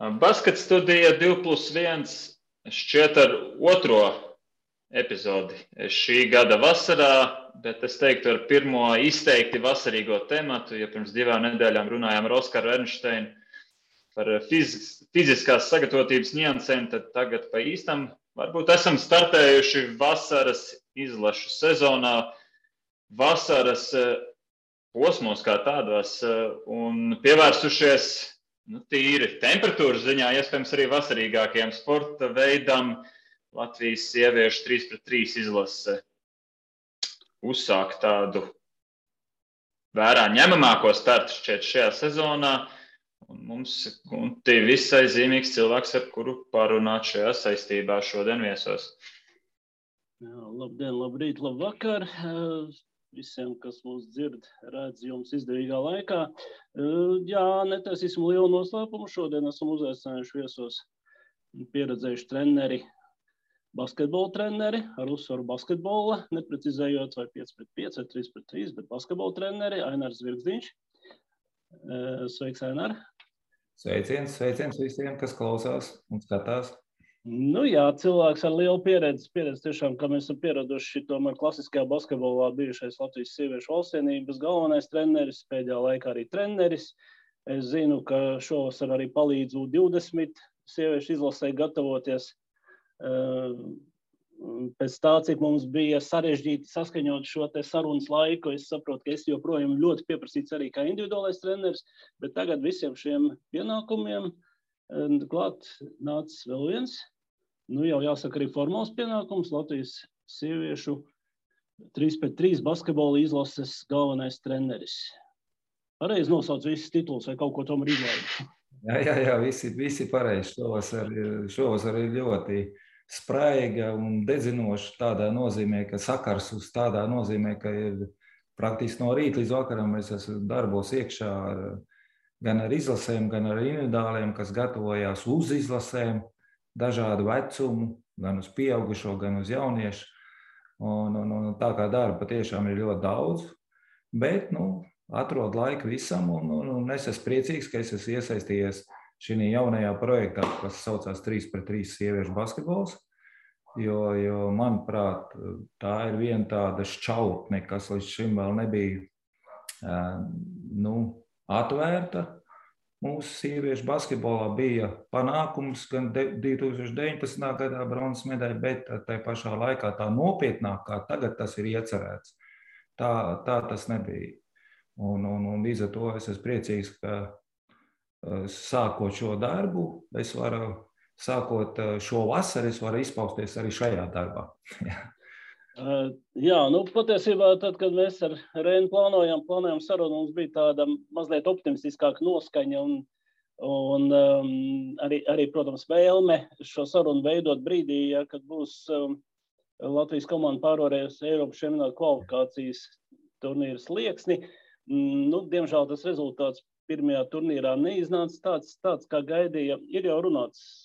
Basket studija 2+1 šķiet ar otro epizodi šī gada vasarā, bet es teiktu ar pirmo izteikti vasarīgo tematu, ja pirms 2 nedēļām runājām ar Oskaru Ernšteinu par fiziskās sagatavotības niansēm, tad tagad pa īstam varbūt esam startējuši vasaras izlašu sezonā, vasaras posmos kā tādos un pievērsušies tīri temperatūras ziņā, iespējams arī vasarīgākajam sporta veidam Latvijas sieviešu 3-3 izlase uzsāk tādu vērā ņemamāko startu šķiet šajā sezonā. Un mums visai zīmīgs cilvēks, ar kuru parunāt šajā saistībā šodien viesos. Jā, labdien, labrīt, labvakar. Visiem, kas mūs dzird, redz jums izdevīgā laikā. Jā, netaisīsim lielu noslēpumu. Šodien esam uzaicinājuši viesos pieredzējuši treneri, basketbola treneri, ar uzsvaru basketbola, neprecizējot vai 5-5 vai 3-3, bet basketbola treneri, Ainars Zvirgzdiņš. Sveiks, Ainar! Sveiciens visiem, kas klausās un skatās. Nu jā, cilvēks ar lielu pieredzi tiešām, kā mēs esam pieraduši tomēr klasiskajā basketbolā bijušais Latvijas sieviešu valstsienības galvenais treneris, pēdējā laikā arī treneris. Es zinu, ka šovasar arī palīdz U20 sieviešu izlasē gatavoties. Pēc tā, cik mums bija sarežģīti saskaņot šo te sarunas laiku, es saprotu, ka es joprojām ļoti pieprasīts arī kā individuālais treneris, bet tagad visiem šiem pienākumiem klāt nācis vēl viens. Nu jau jāsaka arī formāls pienākums, Latvijas sieviešu 3-3 basketbola izlases galvenais treneris. Pareizi nosauc visus titulus vai kaut ko tomēr izlaidu? Jā, visi pareizi. Šovasar ir ļoti spraiga un dedzinoša tādā nozīmē, ka sakars uz tādā nozīmē, ka ir praktiski no rīta līdz vakaram es esmu darbos iekšā gan ar izlasēm, gan ar individuāliem, kas gatavojās uz izlasēm, dažādu vecumu, gan uz pieaugušo, gan uz jauniešu. Un tā kā darba patiešām ir ļoti daudz, bet atrod laiku visam un es esmu priecīgs, ka es esmu iesaistījies šī jaunajā projektā, kas saucās 3-3 sieviešu basketbols, jo, manuprāt, tā ir viena tāda šķautne, kas līdz šim vēl nebija atvērta. Mūsu sieviešu basketbolā bija panākums gan 2019. gadā bronzas medaļa, bet tai pašā laikā tā nopietnāk, kā tagad tas ir iecerēts. Tā tas nebija. Un līdz ar to es esmu priecīgs, ka sākot šo darbu, sākot šo vasaru, es varu izpausties arī šajā darbā. Jā, patiesībā tad, kad mēs ar Reinu plānojam sarunu, mums bija tāda mazliet optimistiskāka noskaņa un arī, protams, vēlme šo sarunu veidot brīdī, kad būs Latvijas komanda pārvarējusi Eiropas čempionāta kvalifikācijas turnīra slieksni. Diemžēl tas rezultāts pirmajā turnīrā neiznāca tāds, kā gaidīja. Ir jau runāts,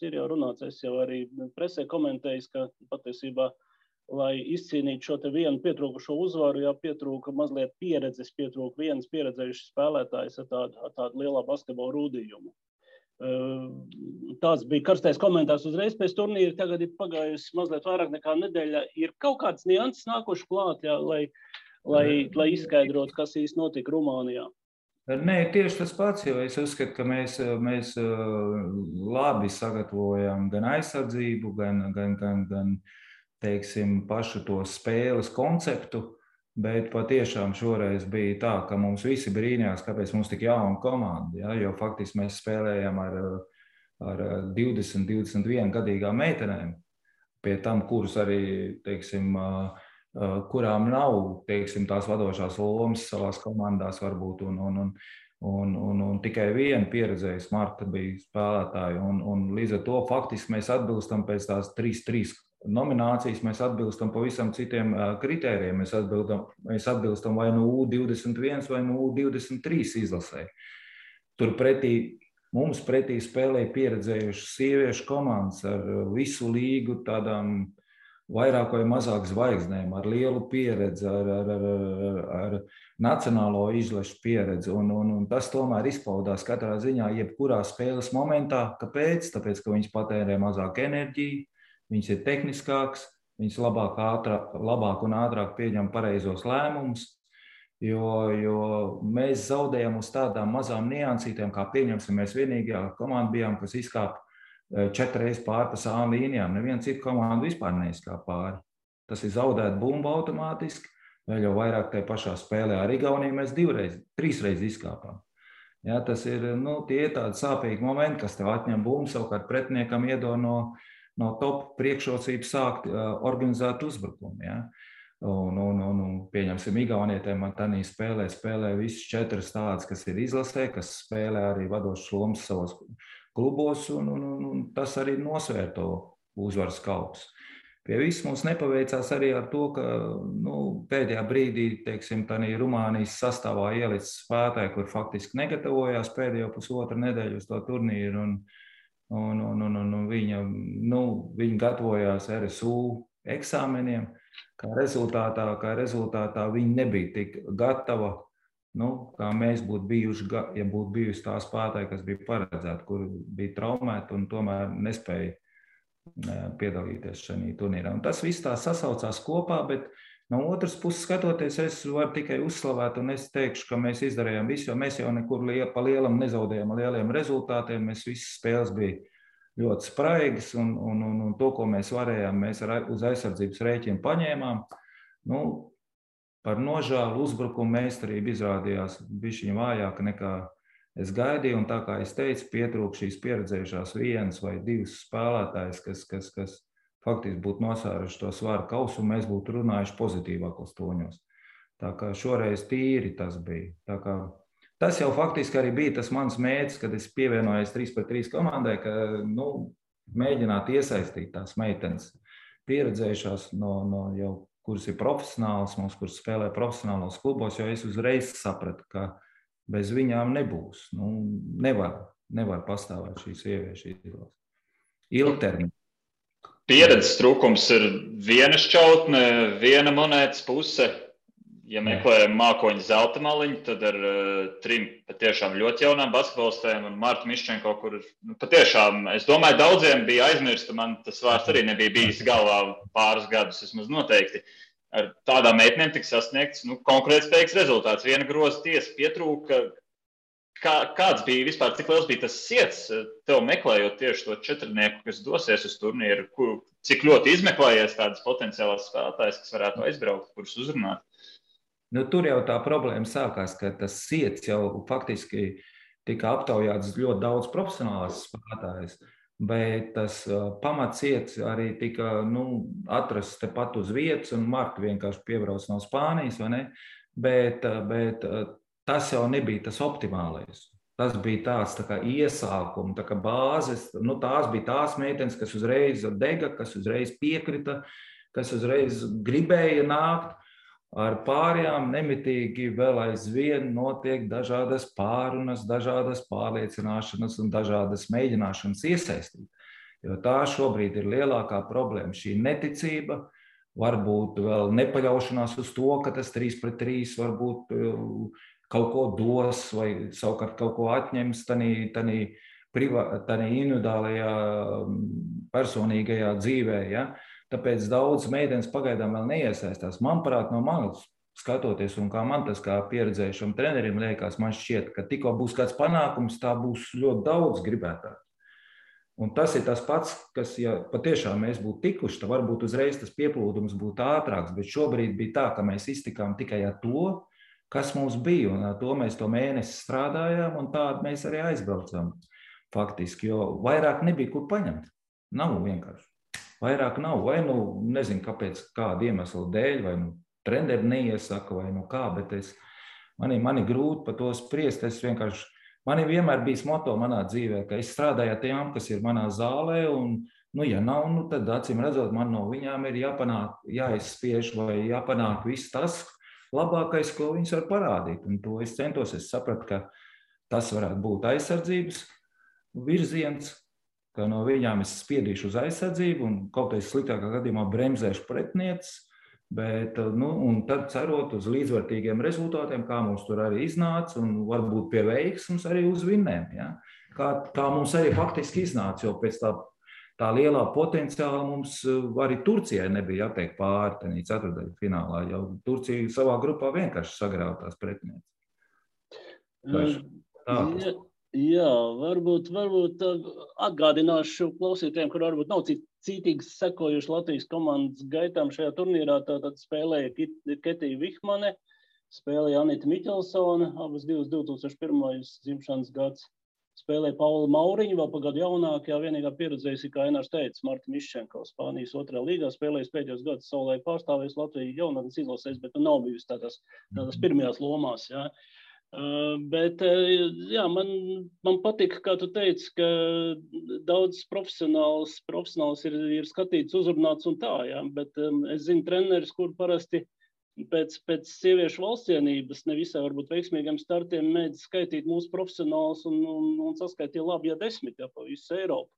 es jau arī presē komentējis, ka patiesībā, lai izcīnītu šo te vienu pietrūkušo uzvaru, pietrūka mazliet pieredzes, pietrūka viens pieredzējušs spēlētājs ar tādu lielā basketbola rūdījumu. Tāds bija karstais komentārs uzreiz pēc turnīra, tagad ir pagājusi mazliet vairāk nekā nedēļa. Ir kaut kāds nianses nākuši klāt, lai izskaidrotu, kas īsti notika Rumānijā. Nē, tieši tas pats, jo es uzskatu, ka mēs labi sagatavojam gan aizsardzību, gan teiksim, pašu to spēles konceptu, bet patiešām šoreiz bija tā, ka mums visi brīnījās, kāpēc mums tik jauna komanda, ja? Jo faktiski mēs spēlējam ar 20-21 gadīgām meitenēm, pie tam, kuras arī, teiksim, kurām nav, teiksim, tās vadošās lomas savās komandās varbūt, un tikai viena pieredzējusi Marta bija spēlētāja, un līdz ar to faktiski mēs atbilstam pēc tās 3-3 nominācijas, mēs atbilstam pavisam citiem kritērijiem, mēs atbilstam vai no U21 vai no U23 izlasē. Mums pretī spēlēja pieredzējušas sieviešu komandas ar visu līgu tādām vairāk vai mazāk zvaigznēm, ar lielu pieredzi, ar nacionālo izlašu pieredzi. Un tas tomēr izpaudās katrā ziņā, jebkurā spēles momentā. Kāpēc? Tāpēc, ka viņš patērē mazāk enerģiju, viņš ir tehniskāks, viņš labāk un ātrāk pieņem pareizos lēmumus. Jo mēs zaudējam uz tādām mazām niansītēm, kā pieņemsim, mēs vienīgajā komanda bijām, kas izkāpa 4 reizes pāri pa sānu līnijām. Neviena cita komanda vispār neizkāpa pāri. Tas ir zaudēt bumbu automātiski, vēl jau vairāk tajā pašā spēlē ar Igauniju mēs 3 reizes izkāpām. Ja, tas ir, tie ir tādi sāpīgi momenti, kas tev atņem bumbu, savukārt pretiniekam iedod no top priekšrocības sākt organizēt uzbrukumu. Ja. Un pieņemsim, Igaunietēm man tādā spēlē visas 4 tādas, kas ir izlasē, kas spēlē arī vadošas lomas savos klubos, un tas arī nosvēr to uzvaras kautus. Pie viss mums nepaveicās arī ar to, ka pēdējā brīdī, teiksim, tādā Rumānijas sastāvā ielicis spēlētāji, kur faktiski negatavojās pēdējo pusotru nedēļu uz to turnīru, un viņi gatavojās RSU eksāmeniem. Kā rezultātā viņi nebija tik gatava, kā mēs būtu bijuši, ja būtu bijusi tā spēlētāji, kas bija paredzēti, kur bija traumēti un tomēr nespēja piedalīties šajā turnīrā. Un tas viss tā sasaucās kopā, bet no otras puses skatoties, es varu tikai uzslavēt, un es teikšu, ka mēs izdarījām visu, jo mēs jau nekur pa lielam nezaudējām lieliem rezultātiem, mēs visas spēles bija ļoti spraigas, un to, ko mēs varējām, mēs uz aizsardzības rēķinu paņēmām. Par nožēlu uzbrukumu meistarība izrādījās bišķiņ vājāka nekā es gaidīju, un tā kā es teicu, pietrūk šīs pieredzējušās 1 vai 2 spēlētājs, kas faktiski būtu nosvēruši to svaru kausu, un mēs būtu runājuši pozitīvākos toņos. Tā kā šoreiz tīri tas bija. Tā kā tas jau faktiski arī bija tas mans mērķis, kad es pievienojos 3-3 komandai, ka mēģināt iesaistīt tās meitenes pieredzējušās, jau, kuras ir profesionāls, kuras spēlē profesionālos klubos, jo es uzreiz sapratu, ka bez viņām nebūs. Nevar pastāvēt šīs sieviešu izlases. Ilgtermiņā. Pieredzes trūkums ir viena šķautne, viena monētas puse. Ja meklējam mākoņu zelta maliņu, tad ar 3 patiešām ļoti jaunām basketbolistēm un Martu Miščenko, kur patiešām, es domāju, daudziem bija aizmirsta, man tas vārds arī nebija bijis galvā pāris gadus, vismaz noteikti. Ar tādām meitenēm tika sasniegts konkurētspējīgs rezultāts. Viena groza tiesa pietrūka. Kāds bija vispār, cik liels bija tas siets tev meklējot tieši to 4-nieku, kas dosies uz turnīru, cik ļoti izmeklējies tādas potenciālās spēlētājas, kas varētu aizbraukt, kurus uzrunāt? Tur jau tā problēma sākās, ka tas siets jau faktiski tika aptaujāts ļoti daudz profesionālās spēlētājas, bet tas pamatsiets arī tika atrasts tepat uz vietas, un Marta vienkārši piebrauc no Spānijas, vai ne? Bet tas jau nebija tas optimālais. Tas bija tāds tā kā iesākums, tā kā bāzes. Tās bija tās meitenes, kas uzreiz dega, kas uzreiz piekrita, kas uzreiz gribēja nākt. Ar pārējām nemitīgi vēl aizvien notiek dažādas pārunas, dažādas pārliecināšanas un dažādas mēģināšanas iesaistīt. Jo tā šobrīd ir lielākā problēma. Šī neticība, varbūt vēl nepaļaušanās uz to, ka tas 3-3 varbūt kaut ko dos vai savukārt kaut ko atņems tādā individuālajā personīgajā dzīvē. Ja? Tāpēc daudz meitenes pagaidām vēl neiesaistās. Manuprāt, no manis skatoties, un kā man tas kā pieredzējušam trenerim liekas, man šķiet, ka tikko būs kāds panākums, tā būs ļoti daudz gribētāju. Un tas ir tas pats, kas, ja patiešām mēs būtu tikuši, tad varbūt uzreiz tas pieplūdums būtu ātrāks, bet šobrīd bija tā, ka mēs iztikām tikai ar to, kas mums bija, un ar to mēs to mēnesi strādājām, un tādu mēs arī aizbraucām faktiski, jo vairāk nebija kur paņemt. Nav vienkārši. Vairāk nav, vai nezinu, kāpēc, kāda iemesla dēļ, vai treneri neiesaka, vai kā, bet man ir grūti par to spriest. Man ir vienmēr bijis moto manā dzīvē, ka es strādāju ar tiem, kas ir manā zālē, un, ja nav, tad acīm redzot, man no viņām ir jāizspiež vai jāpanāk viss tas labākais, ko viņas var parādīt. Un to es centos, es sapratu, ka tas varētu būt aizsardzības virziens, ka no viņām es spiedīšu uz aizsardzību un kaut kādā sliktākā gadījumā bremzēšu pretnieces, bet, un tad cerot uz līdzvērtīgiem rezultātiem, kā mums tur arī iznāca, un varbūt pie veiksmes arī uz vinnēm. Ja? Kā mums arī faktiski iznāca, jo pēc tā lielā potenciāla mums arī Turcijai nebija jātiek pāri tenī ceturtdaļu finālā, jo Turcija savā grupā vienkārši sagrāva tās pretnieces. Jā, varbūt atgādināšu klausītājiem, kur varbūt nav cītīgi sekojuši Latvijas komandas gaitām šajā turnīrā. Tātad spēlēja Ketija Vihmane, spēlēja Anita Miķelsone, abas 2001. Dzimšanas gads. Spēlēja Paula Mauriņa, vēl pagadu jaunākajā, vienīgā pieredzējusi, kā Enārs teica, Marta Miščenko, Spānijas 2. līgā, spēlējis pēdējos gadus savulaik pārstāvējis Latviju jaunatnes izlasēs, bet nav bijusi tādās pirmajās lomās, jā. Bet, jā, man patika, kā tu teici, ka daudz profesionāls ir skatīts, uzrunāts un tā, jā, bet es zinu treneris, kur parasti pēc sieviešu valstsienības nevisai varbūt veiksmīgiem startiem mēdz skaitīt mūsu profesionālus un saskaitīja labi, ja 10, ja pa visu Eiropu.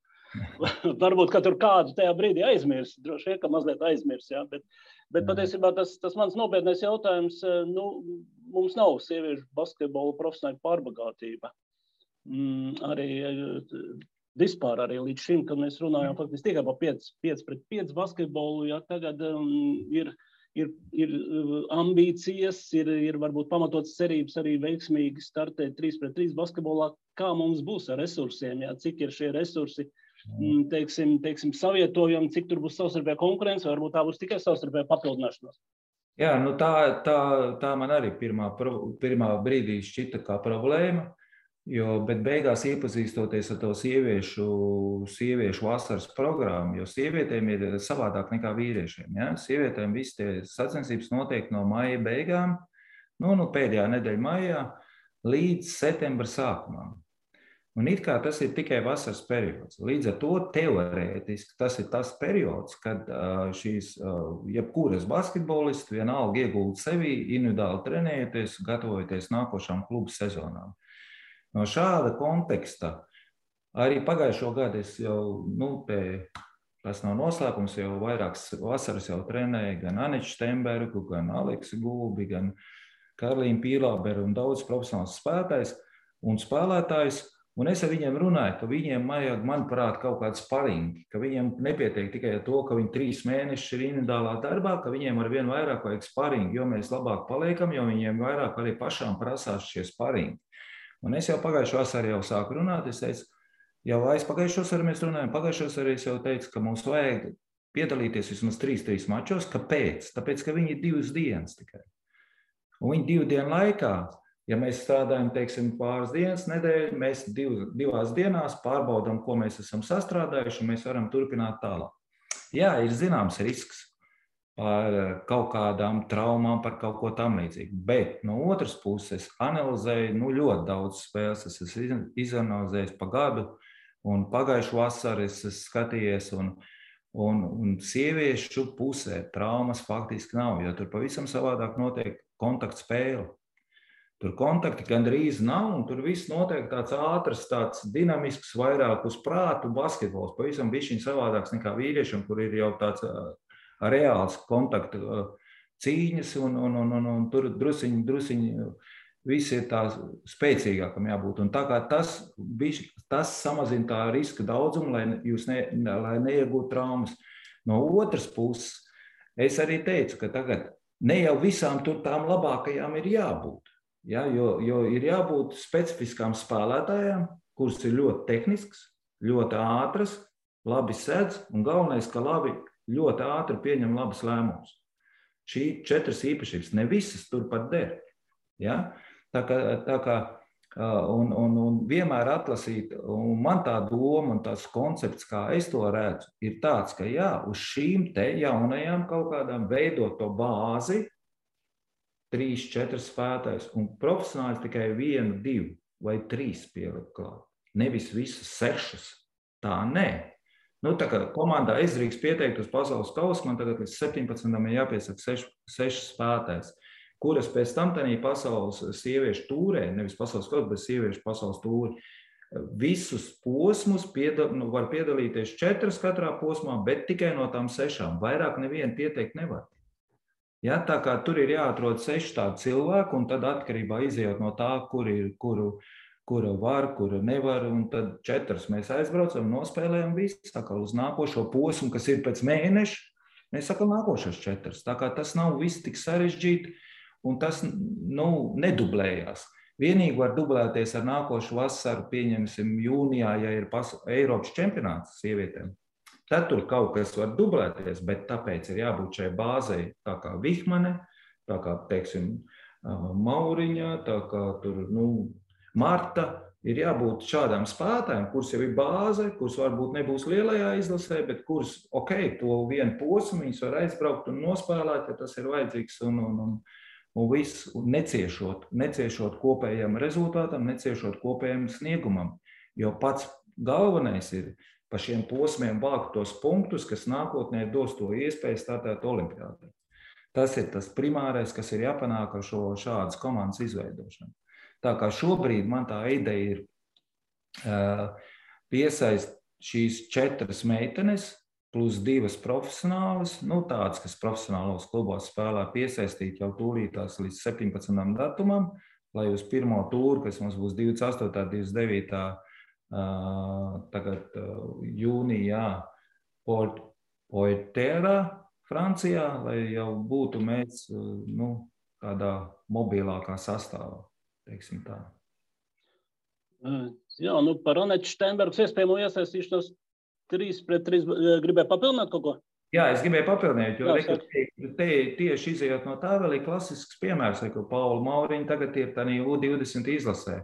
Varbūt, ka tur kādu tajā brīdī aizmirs, droši vien, ka mazliet aizmirs, jā, bet patiesībā tas mans nopietnais jautājums, mums nav sieviešu basketbola profesionāla pārbagātība. Arī vispār arī līdz šim, kad mēs runājam faktiski tikai par 5-pret-5 basketbolu, jā, tagad ir ambīcijas, ir varbūt pamatotas cerības arī veiksmīgi startēt 3-pret-3 basketbolā. Kā mums būs ar resursiem, jā, cik ir šie resursi, teiksim, savietojami, cik tur būs savstarpēja konkurence, varbūt tā būs tikai savstarpēja papildināšanās. Jā, tā man arī pirmā brīdī šķita kā problēma, bet beigās iepazīstoties ar to sieviešu vasaras programmu, jo sievietēm ir savādāk nekā vīriešiem. Ja? Sievietēm visi tie sacensības notiek no maija beigām, pēdējā nedēļa maijā, līdz septembra sākumam. Un it kā tas ir tikai vasaras periods. Līdz ar to teorētiski tas ir tas periods, kad šīs jebkuras basketbolisti vienalga iegulda sevi, individuāli trenējoties, gatavojoties nākošām klubu sezonām. No šāda konteksta arī pagājušo gadu es jau, tas nav noslēpums, jau vairākas vasaras jau trenēju gan Aniču Štembergu, gan Aleksu Gulbi, gan Karlīnu Pīlāberu un daudz profesionāls spēlētājs. Un es ar viņiem runāju, ka viņiem vajag, manuprāt, kaut kāds sparingi, ka viņiem nepietiek tikai ar to, ka viņi 3 mēnešus ir individuālā darbā, ka viņiem ar vien vairāk vajag sparingi, jo mēs labāk paliekam, jo viņiem vairāk arī pašām prasās šie sparingi. Un es jau pagājušo vasaru jau sāku runāt, es teicu, jau aizpagājušo vasaru mēs runājam, pagājušo vasaru es jau teicu, ka mums vajag piedalīties vismaz 3 mačos. Kāpēc? Tāpēc, ka viņi ir 2 dienas tikai. Un viņi 2 dienu laikā, ja mēs strādājam, teiksim, pāris dienas nedēļu, mēs 2 dienās pārbaudām, ko mēs esam sastrādājuši, un mēs varam turpināt tālāk. Jā, ir zināms risks par kaut kādām traumām, par kaut ko tam līdzīgu, bet no otras puses analizēju ļoti daudz spēles, es esmu izanalizējis pa gadu, un pagājušu vasaru es skatījies, un sieviešu pusē traumas faktiski nav, jo tur pavisam savādāk notiek kontaktspēle. Tur kontakti gandrīz nav, un tur viss notiek tāds ātrs, tāds dinamisks, vairāk uz prātu basketbols. Pavisam bišķiņ savādāks nekā vīriešiem, kur ir jau tāds reāls kontaktu cīņas, un tur drusiņi visi ir tā spēcīgākam jābūt. Un tā kā tas samazina tā riska daudzumu, lai neiegūtu traumas. No otras puses, es arī teicu, ka tagad ne jau visām tur tām labākajām ir jābūt. Ja, jo ir jābūt specifiskām spēlētājām, kuras ir ļoti tehnisks, ļoti ātras, labi sedz un galvenais, ka ļoti ātri pieņem labas lēmumus. Šī 4 īpašības, ne visas turpat der. Ja? Tā kā un vienmēr atlasīt, un man tā doma un tās koncepts, kā es to redzu, ir tāds, ka jā, uz šīm te jaunajām kaut kādām veidot to bāzi, 3-4 spēlētājus, un profesionāli tikai 1, 2 vai 3 pielikt klāt. Nevis visas 6. Tā nē. Tā kā komandā es drīkst pieteikt uz pasaules kausu, man tagad līdz 17. ir jāpiesaka 6 spēlētājs, kuras pēc tam tanī pasaules sieviešu tūrē, nevis pasaules kausu, bet sieviešu pasaules tūri, visus posmus var piedalīties 4 katrā posmā, bet tikai no tām 6. Vairāk nevienu pieteikt nevar. Ja, tā kā tur ir jāatrod 6 tādi cilvēki, un tad atkarībā izējot no tā, kura var, kura nevar, un tad 4 mēs aizbraucam, nospēlējam visu, tā kā uz nākošo posmu, kas ir pēc mēneša, mēs sakam nākošas 4. Tā kā tas nav viss tik sarežģīti, un tas nedublējās. Vienīgi var dublēties ar nākošu vasaru, pieņemsim jūnijā, ja ir Eiropas čempionāts sievietēm. Tad tur kaut kas var dublēties, bet tāpēc ir jābūt šai bāzei, tā kā Vihmane, tā kā, teiksim, Mauriņa, tā kā tur, Marta, ir jābūt šādām spēlētājiem, kuras jau ir bāze, kuras varbūt nebūs lielajā izlasē, bet kuras, to vienu posmu viņas var aizbraukt un nospēlēt, ja tas ir vajadzīgs, un viss neciešot kopējam rezultātam, neciešot kopējam sniegumam. Jo pats galvenais ir pa šiem posmiem vākt tos punktus, kas nākotnē dos to iespēju startēt olimpiādē. Tas ir tas primārais, kas ir jāpanāk ar šādas komandas izveidošanu. Tā kā šobrīd man tā ideja ir piesaist šīs 4 meitenes plus 2 profesionālas, tādas, kas profesionālos klubos spēlē, piesaistīt jau tūlītās līdz 17. datumam, lai uz pirmo tūru, kas mums būs 28. 29. Tagad jūnijā Poitiers, Francijā, lai jau būtu mēs tādā mobilākā sastāvā. Tā. Jā, par Anetu Steinbergas iespējamo iesaistīšanos 3-3 gribēju papildināt kaut ko? Jā, es gribēju papildināt, jo tieši izējot no tā vēl ir klasisks piemērs, ka Paula Mauriņa tagad ir tādā U20 izlasē.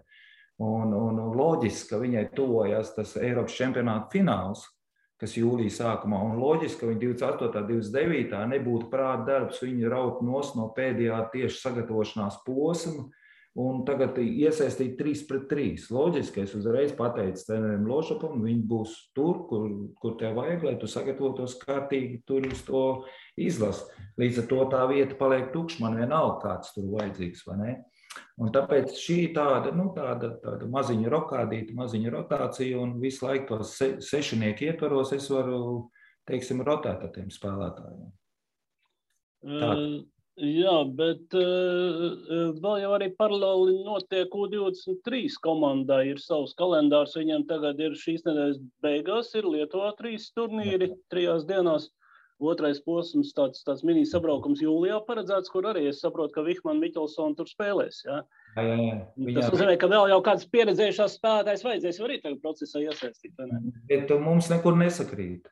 Un loģiski, ka viņai tuvojas tas Eiropas čempionāta fināls, kas jūlijā sākumā, un loģiski, ka viņa 28. 29. nebūtu prāta darbs, viņa raut no pēdējā tieši sagatavošanās posma, un tagad iesaistīt 3-3. Loģiski, es uzreiz pateicu trenerim Lošapam, viņi būs tur, kur tev vajag, lai tu sagatavotos kārtīgi tur uz to izlasi. Līdz ar to tā vieta paliek tukša, man vienalga kāds tur vajadzīgs, vai ne? Un tāpēc šī tāda maziņa rokādīta, maziņa rotācija, un visu laiku tos 6 ietvaros es varu, rotēt ar tiem spēlētājiem. Jā, bet vēl jau arī paralēli notiek U23 komandai, ir savs kalendārs, viņiem tagad ir šīs nedēļas beigās, ir Lietuvā 3 turnīri 3 dienās. Otrais posms, tāds mini sabraukums jūlijā paredzēts, kur arī es saprotu, ka Vihmane Miķelsona tur spēlēs. Jā. Tas nozīmē, ka vēl jau kāds pieredzējušās spēlētājs vajadzēs arī tagad procesā iesaistīt. Bet mums nekur nesakrīt.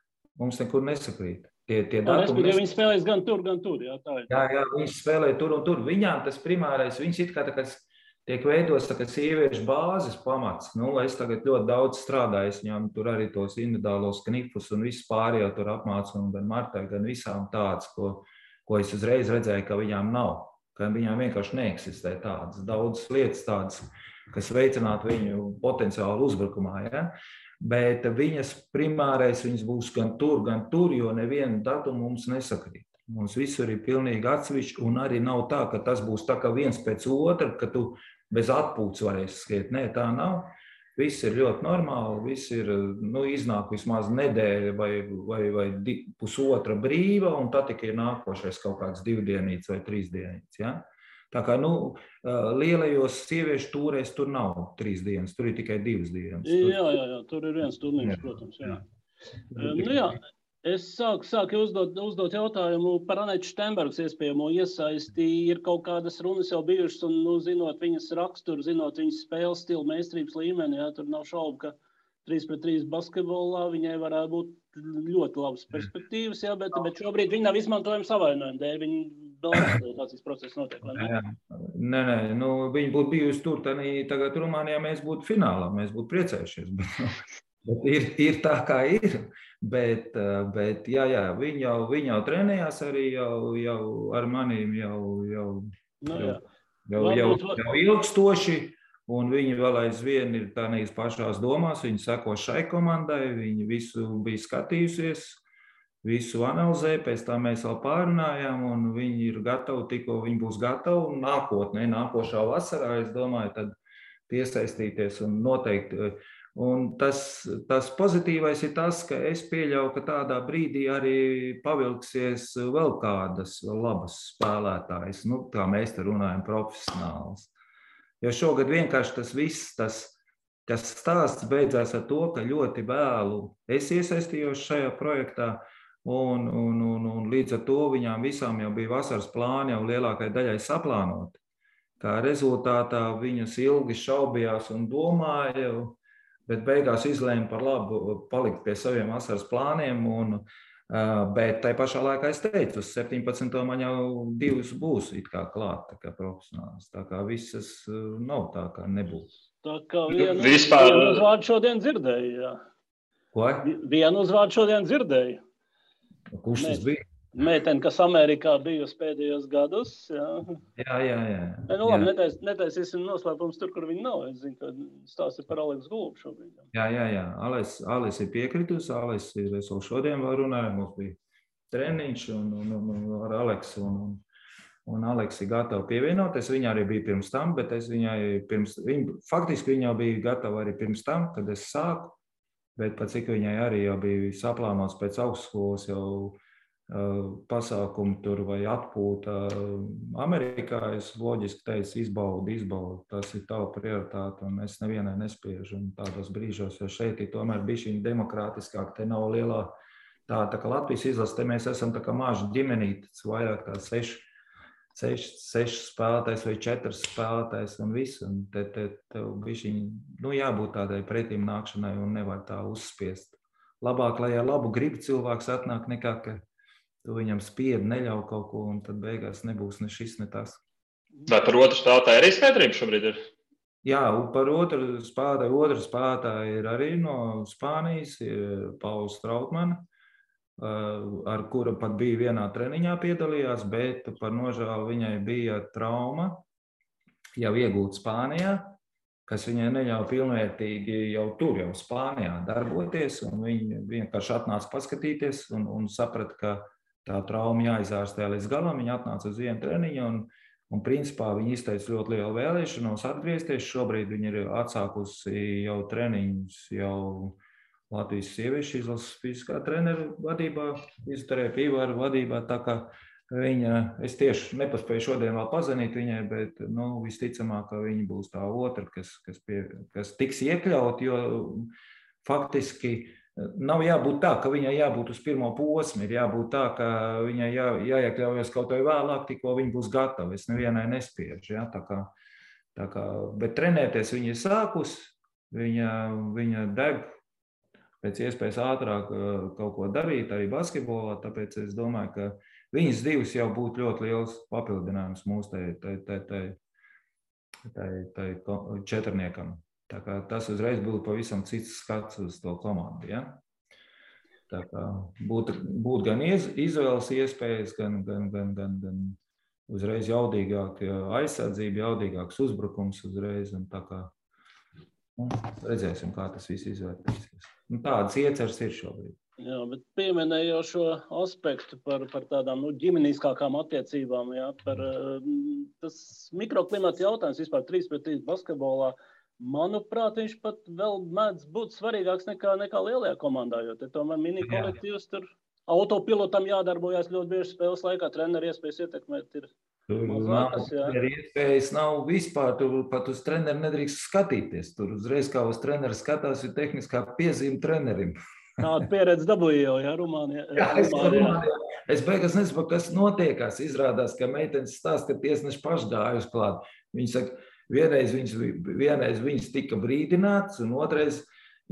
Tie datumi, viņi spēlēs gan tur. Jā, tā ir. Jā, viņi spēlē tur un tur. Viņām tas primārais, viņas it kā tiek veidots sieviešu bāzes pamats. Es tagad ļoti daudz strādāju, viņām tur arī tos individuālos knifus un visu pārējo tur apmācu, un gan Martai, gan visām tādas, ko es uzreiz redzēju, ka viņām nav. Ka viņām vienkārši neeksistē tādas, daudzas lietas tādas, kas veicinātu viņu potenciālu uzbrukumā. Ja? Bet viņas primārais, viņas būs gan tur, jo nevienu datumu mums nesakrīt. Mums visur ir pilnīgi atsevišķi, un arī nav tā, ka tas būs tā kā viens pēc otra, ka tu bez atpūtas varēsi skriet. Nē, tā nav. Viss ir ļoti normāli, viss ir, iznāk vismaz nedēļa vai pusotra brīva, un tad tikai ir nākošais kaut kāds 2 dienīts vai 3 dienīts. Ja? Tā kā, lielajos sieviešu tūrēs tur nav 3 dienas, tur ir tikai 2 dienas. Jā, tur ir viens turnīrs, protams, jā. Jā, es sāku uzdot jautājumu par Anetu Steinbergas iespējamo iesaisti. Ir kaut kādas runas jau bijušas, un, zinot viņas raksturu, zinot viņas spēles stilu, meistarības līmeni, jā, tur nav šaubu, ka 3-3 basketbolā viņai varētu būt ļoti labas perspektīvas, jā, bet šobrīd viņi nav izmantojami savainojumi dēļ, viņi vēl adaptācijas process notiek, vai ne? Nē, viņi būtu bijusi tur, tagad Rumānijā mēs būtu finālā, mēs būtu priecējušies, bet ir tā, kā ir, bet jā, viņi jau trenējās arī jau ar manīm jau ilgstoši, un viņi vēl aizvien ir tādās pašās domās, viņi seko šai komandai, viņi visu bija skatījusies, visu analizē, pēc tā mēs vēl pārunājām, un viņi ir gatavi, tikko viņi būs gatavi, un nākošā vasarā, es domāju, tad piesaistīties un noteikti Un tas pozitīvais ir tas, ka es pieļauju, ka tādā brīdī arī pavilksies vēl kādas labas spēlētājas, nu, kā mēs te runājam, profesionāls. Jo šogad vienkārši tas viss, tas stāsts beidzās ar to, ka ļoti vēlu es iesaistījos šajā projektā, un līdz ar to viņām visām jau bija vasaras plāni jau lielākai daļai saplānoti. Kā rezultātā viņas ilgi šaubījās un domāja, bet beigās izlēma par labu palikt pie saviem vasaras plāniem. Bet tai pašā laikā es teicu, uz 17. man jau 2 būs it kā klāt, tā kā profesionāls. Tā kā visas nav tā, kā nebūs. Tā kā vienu uzvārdu šodien dzirdēju, jā. Ko? Vienu uzvārdu šodien dzirdēju. Kurš tas bija? Meitene, kas Amerikā bijusi pēdējos gadus. Jā. Nu, labi, netaisīsim noslēpums tur, kur viņi nav. Es zinu, ka stāsti par Aleksu Gulbu šobrīd. Jā. Alis ir piekritusi. Alis ir, es vēl šodien vēl runāju, mums bija treniņš ar Aleksu. Un Aleks ir gatava pievienoties. Viņa arī bija pirms tam, bet es viņai faktiski viņa bija gatava arī pirms tam, kad es sāku. Bet pat cik viņai arī jau bija saplānots pēc augstskolas jau pasākumu tur vai atpūta Amerikā, es loģiski teicu, izbaudi, tas ir tava prioritāte, un es nevienai nespiežu un tādos brīžos, jo šeit ir tomēr bišķiņ demokrātiskāk, te nav lielā tā kā Latvijas izlase, te mēs esam tā kā maži ģimenītes, vairāk kā 6 spēlētājs vai 4 spēlētājs un viss, un tev bišķiņ, nu jābūt tādai pretīm nākšanai un nevar tā uzspiest. Labāk, lai ar labu gribu cilvēks atnāk nekā, ka tu viņam spiedi, neļauj kaut ko, un tad beigās nebūs ne šis, ne tas. Vai par otru spēlētāju arī skaidrība šobrīd ir? Jā, par otru spēlētāju ir arī no Spānijas, ir Pauls Trautmana, ar kura pat bija vienā treniņā piedalījās, bet par nožēlu viņai bija trauma jau iegūta Spānijā, kas viņai neļauj pilnvērtīgi jau tur, jau Spānijā darboties, un viņa vienkārši atnāca paskatīties un saprata, ka tā trauma jāizārstē līdz galam. Viņa atnāca uz vienu treniņu un principā viņa izteica ļoti lielu vēlēšanos atgriezties. Šobrīd viņa ir atsākusi jau treniņus jau Latvijas sieviešu izlases fiziskā treneru vadībā, fizioterapiju vadībā, tā kā es tieši nepaspēju šodien vēl pazvanīt viņai, bet visticamāk, ka viņa būs tā otra, kas tiks iekļaut, jo faktiski nav jābūt tā, ka viņai jābūt uz pirmo posmu, ir jābūt tā, ka viņai jāiekļaujas kaut vai vēlāk, tikko viņa būs gatava. Es nevienai nespiežu, ja? Tā kā, bet trenēties viņa ir sākus, viņa deg pēc iespējas ātrāk kaut ko darīt, arī basketbolā, tāpēc es domāju, ka viņas 2 jau būtu ļoti liels papildinājums mūsu tai četrniekam. Tā kā tas uzreiz būtu pavisam cits skats uz to komandu. Ja? Tā kā būtu gan izvēles iespējas, gan uzreiz jaudīgāk aizsardzība, jaudīgāks uzbrukums uzreiz. Un tā kā redzēsim, kā tas viss izvērtīsies. Tādas ieceres ir šobrīd. Jā, bet pieminēju šo aspektu par tādām ģimeniskākām attiecībām, jā, par tas mikroklimata jautājums vispār 3-3 basketbolā. Manuprāt, viņš pat vēl mēdz būt svarīgāks nekā lielajā komandā, jo te tomēr mini kolektīvs tur autopilotam jādarbojas ļoti bieži spēles laikā, treneri iespējas ietekmēt ir mazākas. Iespējas nav vispār, tur pat uz treneri nedrīkst skatīties. Tur uzreiz kā uz treneri skatās, ir tehniskā piezīme trenerim. Tāda pieredze dabūja jau, jā, Rumānijā. Es beigās nesaprotu, kas notiekās. Izrādās, ka meitenes stāsta, ka tiesneši paši gājuši klāt. Viņi saka, vienreiz viņas tika brīdināts, un otrais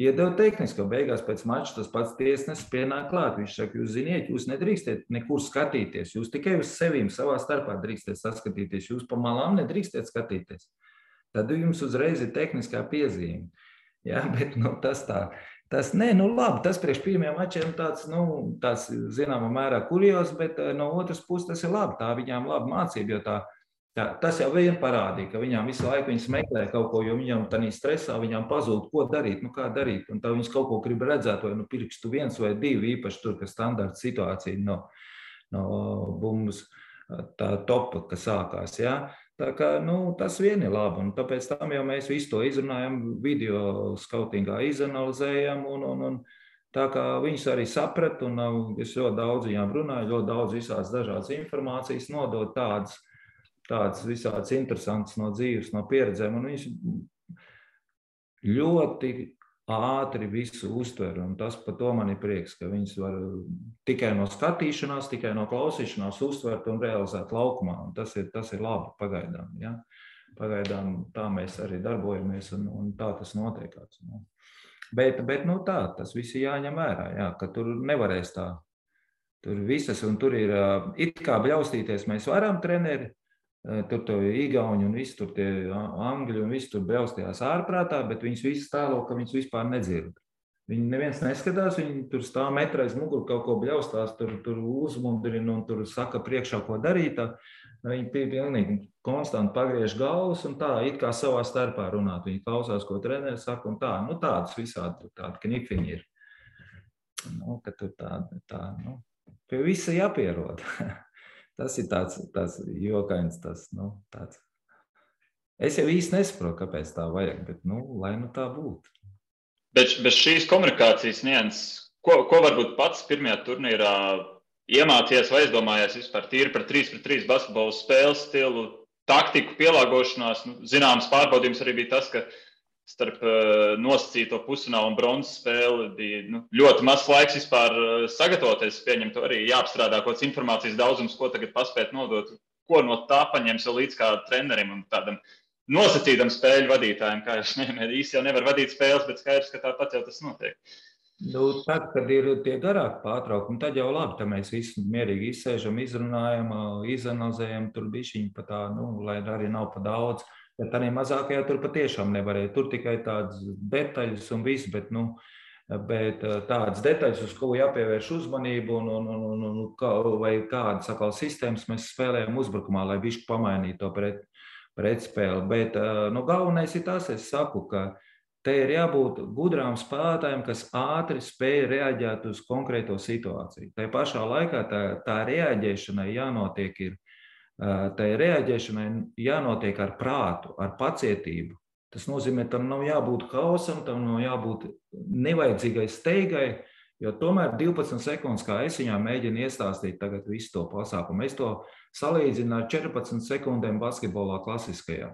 iedeva tehnisko. Beigās pēc mača tas pats tiesnesis pienāk klāt. Viņš saka, jūs ziniet, jūs nedrīkstiet nekur skatīties. Jūs tikai uz sevīm savā starpā drīkstiet saskatīties. Jūs pa malām nedrīkstiet skatīties. Tad jums uzreiz ir tehniskā piezīme. Jā, bet tas tā. Tas priekš pirmajiem mačiem tāds zināmā mērā kurjos, bet no otras puses tas ir labi. Tā viņām laba mācība, jo tas jau vien parādīja, ka viņām visu laiku viņas meklē kaut ko, jo viņām tādā stresā viņām pazūd, ko darīt, kā darīt. Un tā viņas kaut ko grib redzēt, vai pirkstu 1 vai 2, īpaši tur, ka standarta situācija no bumbas tā topa, kas sākās. Ja? Tā kā, tas vien ir labi, un tāpēc tam jau mēs visu to izrunājam, video skautingā izanalizējam, un tā kā viņus arī saprat, un es ļoti daudz viņām runāju, ļoti daudz visās dažādas informācijas nodot tādas visādas interesantas no dzīves, no pieredzēm, un viņš ļoti ātri visu uztver, un tas par to man ir prieks, ka viņas var tikai no skatīšanās, tikai no klausīšanās uztvert un realizēt laukumā, un tas ir labi pagaidām, ja? Pagaidām tā mēs arī darbojamies, un tā tas notiekās. Bet tā, tas viss ir jāņem vērā, jā, ka tur nevarēs tā, tur visas, un tur ir, it kā bļaustīties mēs varam, treneri, tur to igauņi un visi tur tie angļi un visi tur bļaustījās ārprātā, bet viņas visi stālo, ka viņas vispār nedzird. Viņi neviens neskatās, viņi tur stāv metrais muguru, kaut ko bļaustās, tur uzmundrina un tur saka priekšā, ko darīt. Viņi pilnīgi konstanti pagriež galvas un tā, it kā savā starpā runāt. Viņi klausās, ko treneris saka un tā. Tādas visādi tādi knifiņi ir. Ka tur tā, pie visa jāpierod. Tas ir tāds jokains, tāds. Es jau īsti nesaprotu, kāpēc tā vajag, bet, lai tā būtu. Bet bez šīs komunikācijas nianses, ko varbūt pats pirmajā turnīrā iemācījies vai aizdomājies vispār tīri par 3-3 basketbolu spēles stilu, taktiku, pielāgošanās? Zināms pārbaudījums arī bija tas, ka starp nosacīto pusfinālu un bronzas spēli bija ļoti mazs laiks vispār sagatavoties. Pieņemt arī jāapstrādā kaut kāds informācijas daudzums, ko tagad paspēt nodot, ko no tā paņems vēl līdz kā trenerim un tādam nosacītam spēļu vadītājiem. Kā jūs nevienmēr īsti jau nevar vadīt spēles, bet skaidrs, ka tāpat jau tas notiek. Tad, kad ir tie garāki pārtraukumi, tad jau labi, tad mēs visi mierīgi izsēžam, izrunājam, izanalizējam, tur bišķiņi pa tā, lai arī nav pa daudz. Bet arī mazākajā tur patiešām nevarēja. Tur tikai tādas detaļas un viss, bet tādas detaļas, uz ko jāpievērš uzmanību vai kādas atkal sistēmas mēs spēlējam uzbrukumā, lai bišķi pamainītu to pretspēli. Bet galvenais ir tas, es saku, ka te ir jābūt gudrām spēlētājiem, kas ātri spēj reaģēt uz konkrēto situāciju. Tai pašā laikā tā reaģēšanai jānotiek ir. Tai reaģēšanai jānotiek ar prātu, ar pacietību. Tas nozīmē, tam nav jābūt haosam, tam nav jābūt nevajadzīgai steigai, jo tomēr 12 sekundes, kā es viņām mēģinu iestāstīt tagad visu to pasākumu, es to salīdzinu ar 14 sekundēm basketbolā klasiskajā.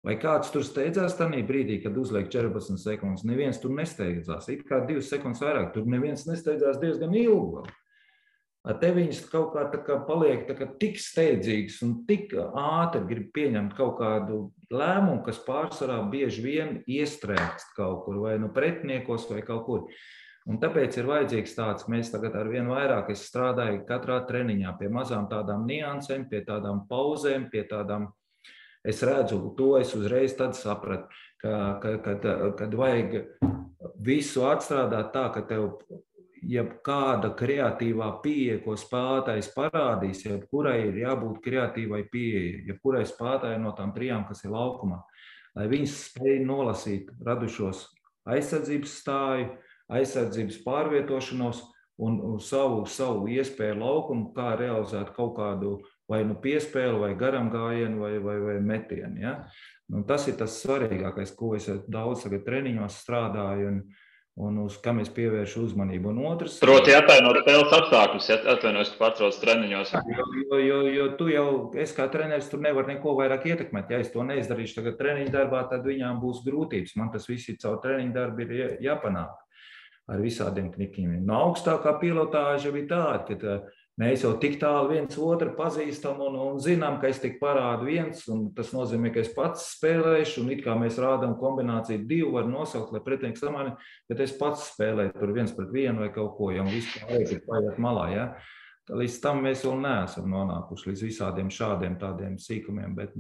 Vai kāds tur steidzās tajā brīdī, kad uzliek 14 sekundes? Neviens tur nesteidzās, it kā 2 sekundes vairāk, tur neviens nesteidzās diezgan ilgi. Te viņas kaut kā paliek tik steidzīgas un tik ātri grib pieņemt kaut kādu lēmumu, kas pārsvarā bieži vien iestrēgst kaut kur, vai pretiniekos, vai kaut kur. Un tāpēc ir vajadzīgs tāds, mēs tagad ar vien vairāk, es strādāju katrā treniņā pie mazām tādām niansēm, pie tādām pauzēm, pie tādām, es redzu to, es uzreiz tad sapratu, kad vajag visu atstrādāt tā, ka tev jebkāda kreatīvā pieeja, ko spēlētājs parādīs, jebkurai ir jābūt kreatīvai pieeja, jebkurai spēlētājai no tām trijām, kas ir laukumā, lai viņas spēj nolasīt radušos aizsardzības stāju, aizsardzības pārvietošanos un savu iespēju laukumu, kā realizēt kaut kādu vai piespēli, vai garam gājienu, vai metienu. Ja? Tas ir tas svarīgākais, ko es daudz tagad treniņos strādāju, un uz kam es pievēršu uzmanību. Un otrs... Proti attainot spēles apstākļus, atvainojos, ka pārtrauc treniņos. Jo tu jau, es kā treneris, tur nevar neko vairāk ietekmēt. Ja es to neizdarīšu tagad treniņu darbā, tad viņām būs grūtības. Man tas viss ir caur treniņu darbu ir jāpanāk ar visādiem knikiem. Augstākā pilotāža bija tāda, ka mēs jau tik tālu viens otru pazīstam un zinām, ka es tik parādu viens, un tas nozīmē, ka es pats spēlēšu, un it kā mēs rādām kombināciju 2, var nosaukt, lai pretinieks samani, bet es pats spēlēju tur 1-1 vai kaut ko, ja vispār ir paiet malā, ja. Līdz tam mēs vēl neesam nonākuši līdz visādiem šādiem tādiem sīkumiem, bet,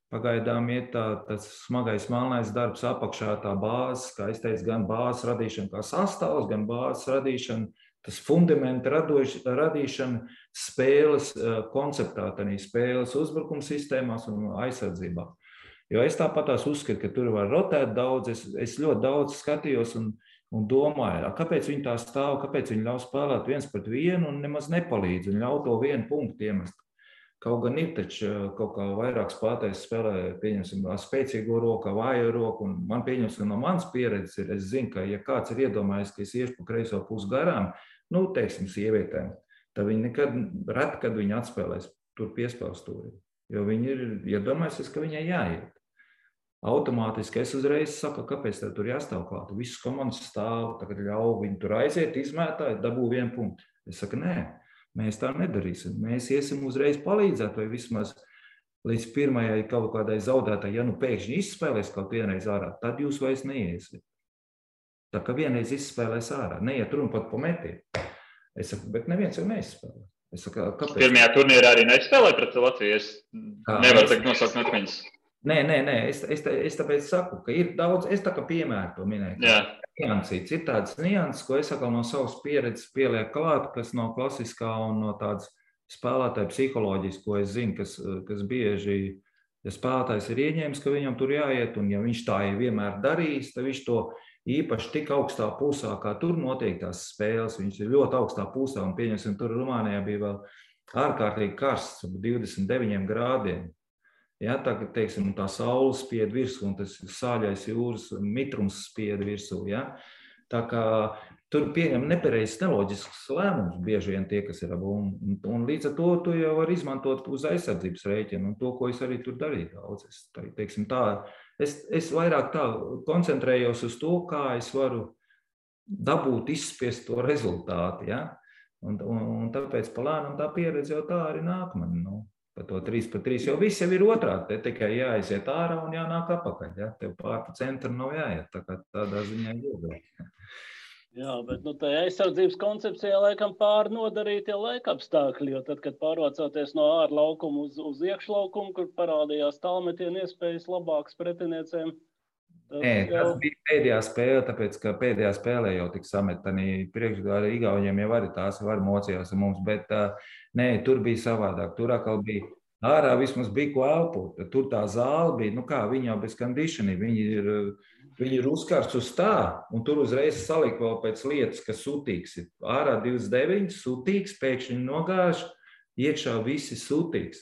pagaidām ir tas smagais melnais darbs apakšā, tā bāzes, kā es teicu, gan bāzes radīšana kā sastāvs, gan bāzes radīšana, tas fundamenta radīšana spēles konceptā, tādā spēles uzbrukuma sistēmās un aizsardzībā. Jo es tāpatās uzskatu, ka tur var rotēt daudz, es ļoti daudz skatījos un domāju, kāpēc viņi tā stāv, kāpēc viņi ļauj spēlēt 1-1 un nemaz nepalīdz un ļauj to 1 punktu iemest. Kaut gan ir taču kaut kā vairāk spēlētājs spēlē, pieņemsim, spēcīgo roku, vājo roku, un man pieņemsim, no manas pieredzes ir, es zinu, ka ja kāds ir iedomājies, ka es iešu pa kreiso pusi garām, nu, teiksim, sievietēm, tad viņi nekad, reti, kad viņi atspēlēs tur piespēlstūri, jo viņi ir iedomājusies, ka viņai jāiet. Automātiski es uzreiz saku, kāpēc tev tur jāstāv klāt. Visas komandas stāv, tagad ļauj viņi tur aiziet, izmētāji, dabū 1 punktu. Es saku, nē, mēs tā nedarīsim. Mēs iesim uzreiz palīdzēt, vai vismaz līdz pirmajai kaut kādai zaudētāji, ja nu pēkšņi izspēlēs kaut vienreiz ārā, tad jūs vairs neiesiet. Tā kā vienreiz izspēlēs ārā, neiet runa pat pa metienu. Es saku, bet neviens jau neizspēlē. Es saku, kāpēc? Pirmajā turnīrā arī neizspēlēja pret Latviju. Es nevaru tagad nosaukt metmeņus. Nē, es tāpēc saku, ka ir daudz, es tā kā piemēru to minēju. Niansīts. Ir tādas nianses, ko es atkal no savas pieredzes pielieku klāt, kas no klasiskā un no tādas spēlētāja psiholoģijas, ko es zinu, kas bieži, ja spēlētājs ir ieņēmis, ka viņam tur jāiet, un ja viņš tā vienmēr darīs, tad viņš to īpaši tik augstā pusā, kā tur notiek tās spēles, viņš ir ļoti augstā pusā, un pieņemsim, tur Rumānijā bija vēl ārkārtīgi karsts, 29 grādiem. Ja, tā, teiksim, tā saule spied virsū, un tas sāļais jūras mitrums spied virsū. Ja? Tā kā tur pieņem nepareizs, neloģisks lēmums bieži vien tie, kas ir abu. Un līdz ar to tu jau var izmantot uz aizsardzības rēķinu, un to, ko es arī tur darīju daudz. Es vairāk tā koncentrējos uz to, kā es varu dabūt, izspiest to rezultātu. Ja? Un tāpēc palēnam tā pieredze jau tā arī nāk man. Pa to 3-3, jo viss jau ir otrādi, te tikai jāaiziet ārā un jānāk apakaļ, ja? Tev pār pa centru nav jāiet, tā kā tādā ziņā iedod. Jā, bet tā aizsardzības koncepcijā laikam pāri nodarītie laika apstākļi, jo tad, kad pārvācoties no ārlaukuma uz iekšlaukumu, kur parādījās tālmetienu iespējas labākas pretiniecēm. Tas bija pēdējā spēle, tāpēc, ka pēdējā spēlē jau tik sametani priekšgāri Igauniem jau arī tās var mocījās ar mums, bet nē, tur bija savādāk. Tur atkal bija ārā vismaz bija ko elpot. Tur tā zāle bija, nu kā, viņi jau bez conditioning, viņi ir uzkārts uz tā, un tur uzreiz saliek vēl pēc lietas, ka sutīgs ir. Ārā 29, sutīgs, pēkšņi nogāž, iekšā visi sutīgs.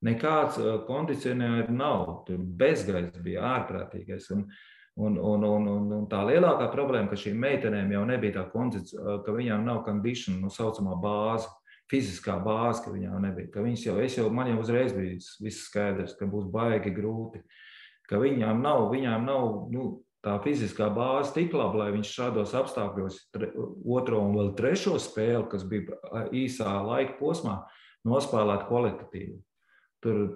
Nekāds kondicionēri nav, tur bezgaiss bija ārprātīgais. Un tā lielākā problēma, ka šīm meitenēm jau nebija tā kondicionēra, ka viņām nav condition, nu saucamā bāze, fiziskā bāze, ka viņām nebija. Ka man jau uzreiz bija viss skaidrs, ka būs baigi grūti, ka viņām nav tā fiziskā bāze tik laba, lai viņš šādos apstākļos otro un vēl trešo spēli, kas bija īsā laika posmā, nospēlēt kvalitatīvi.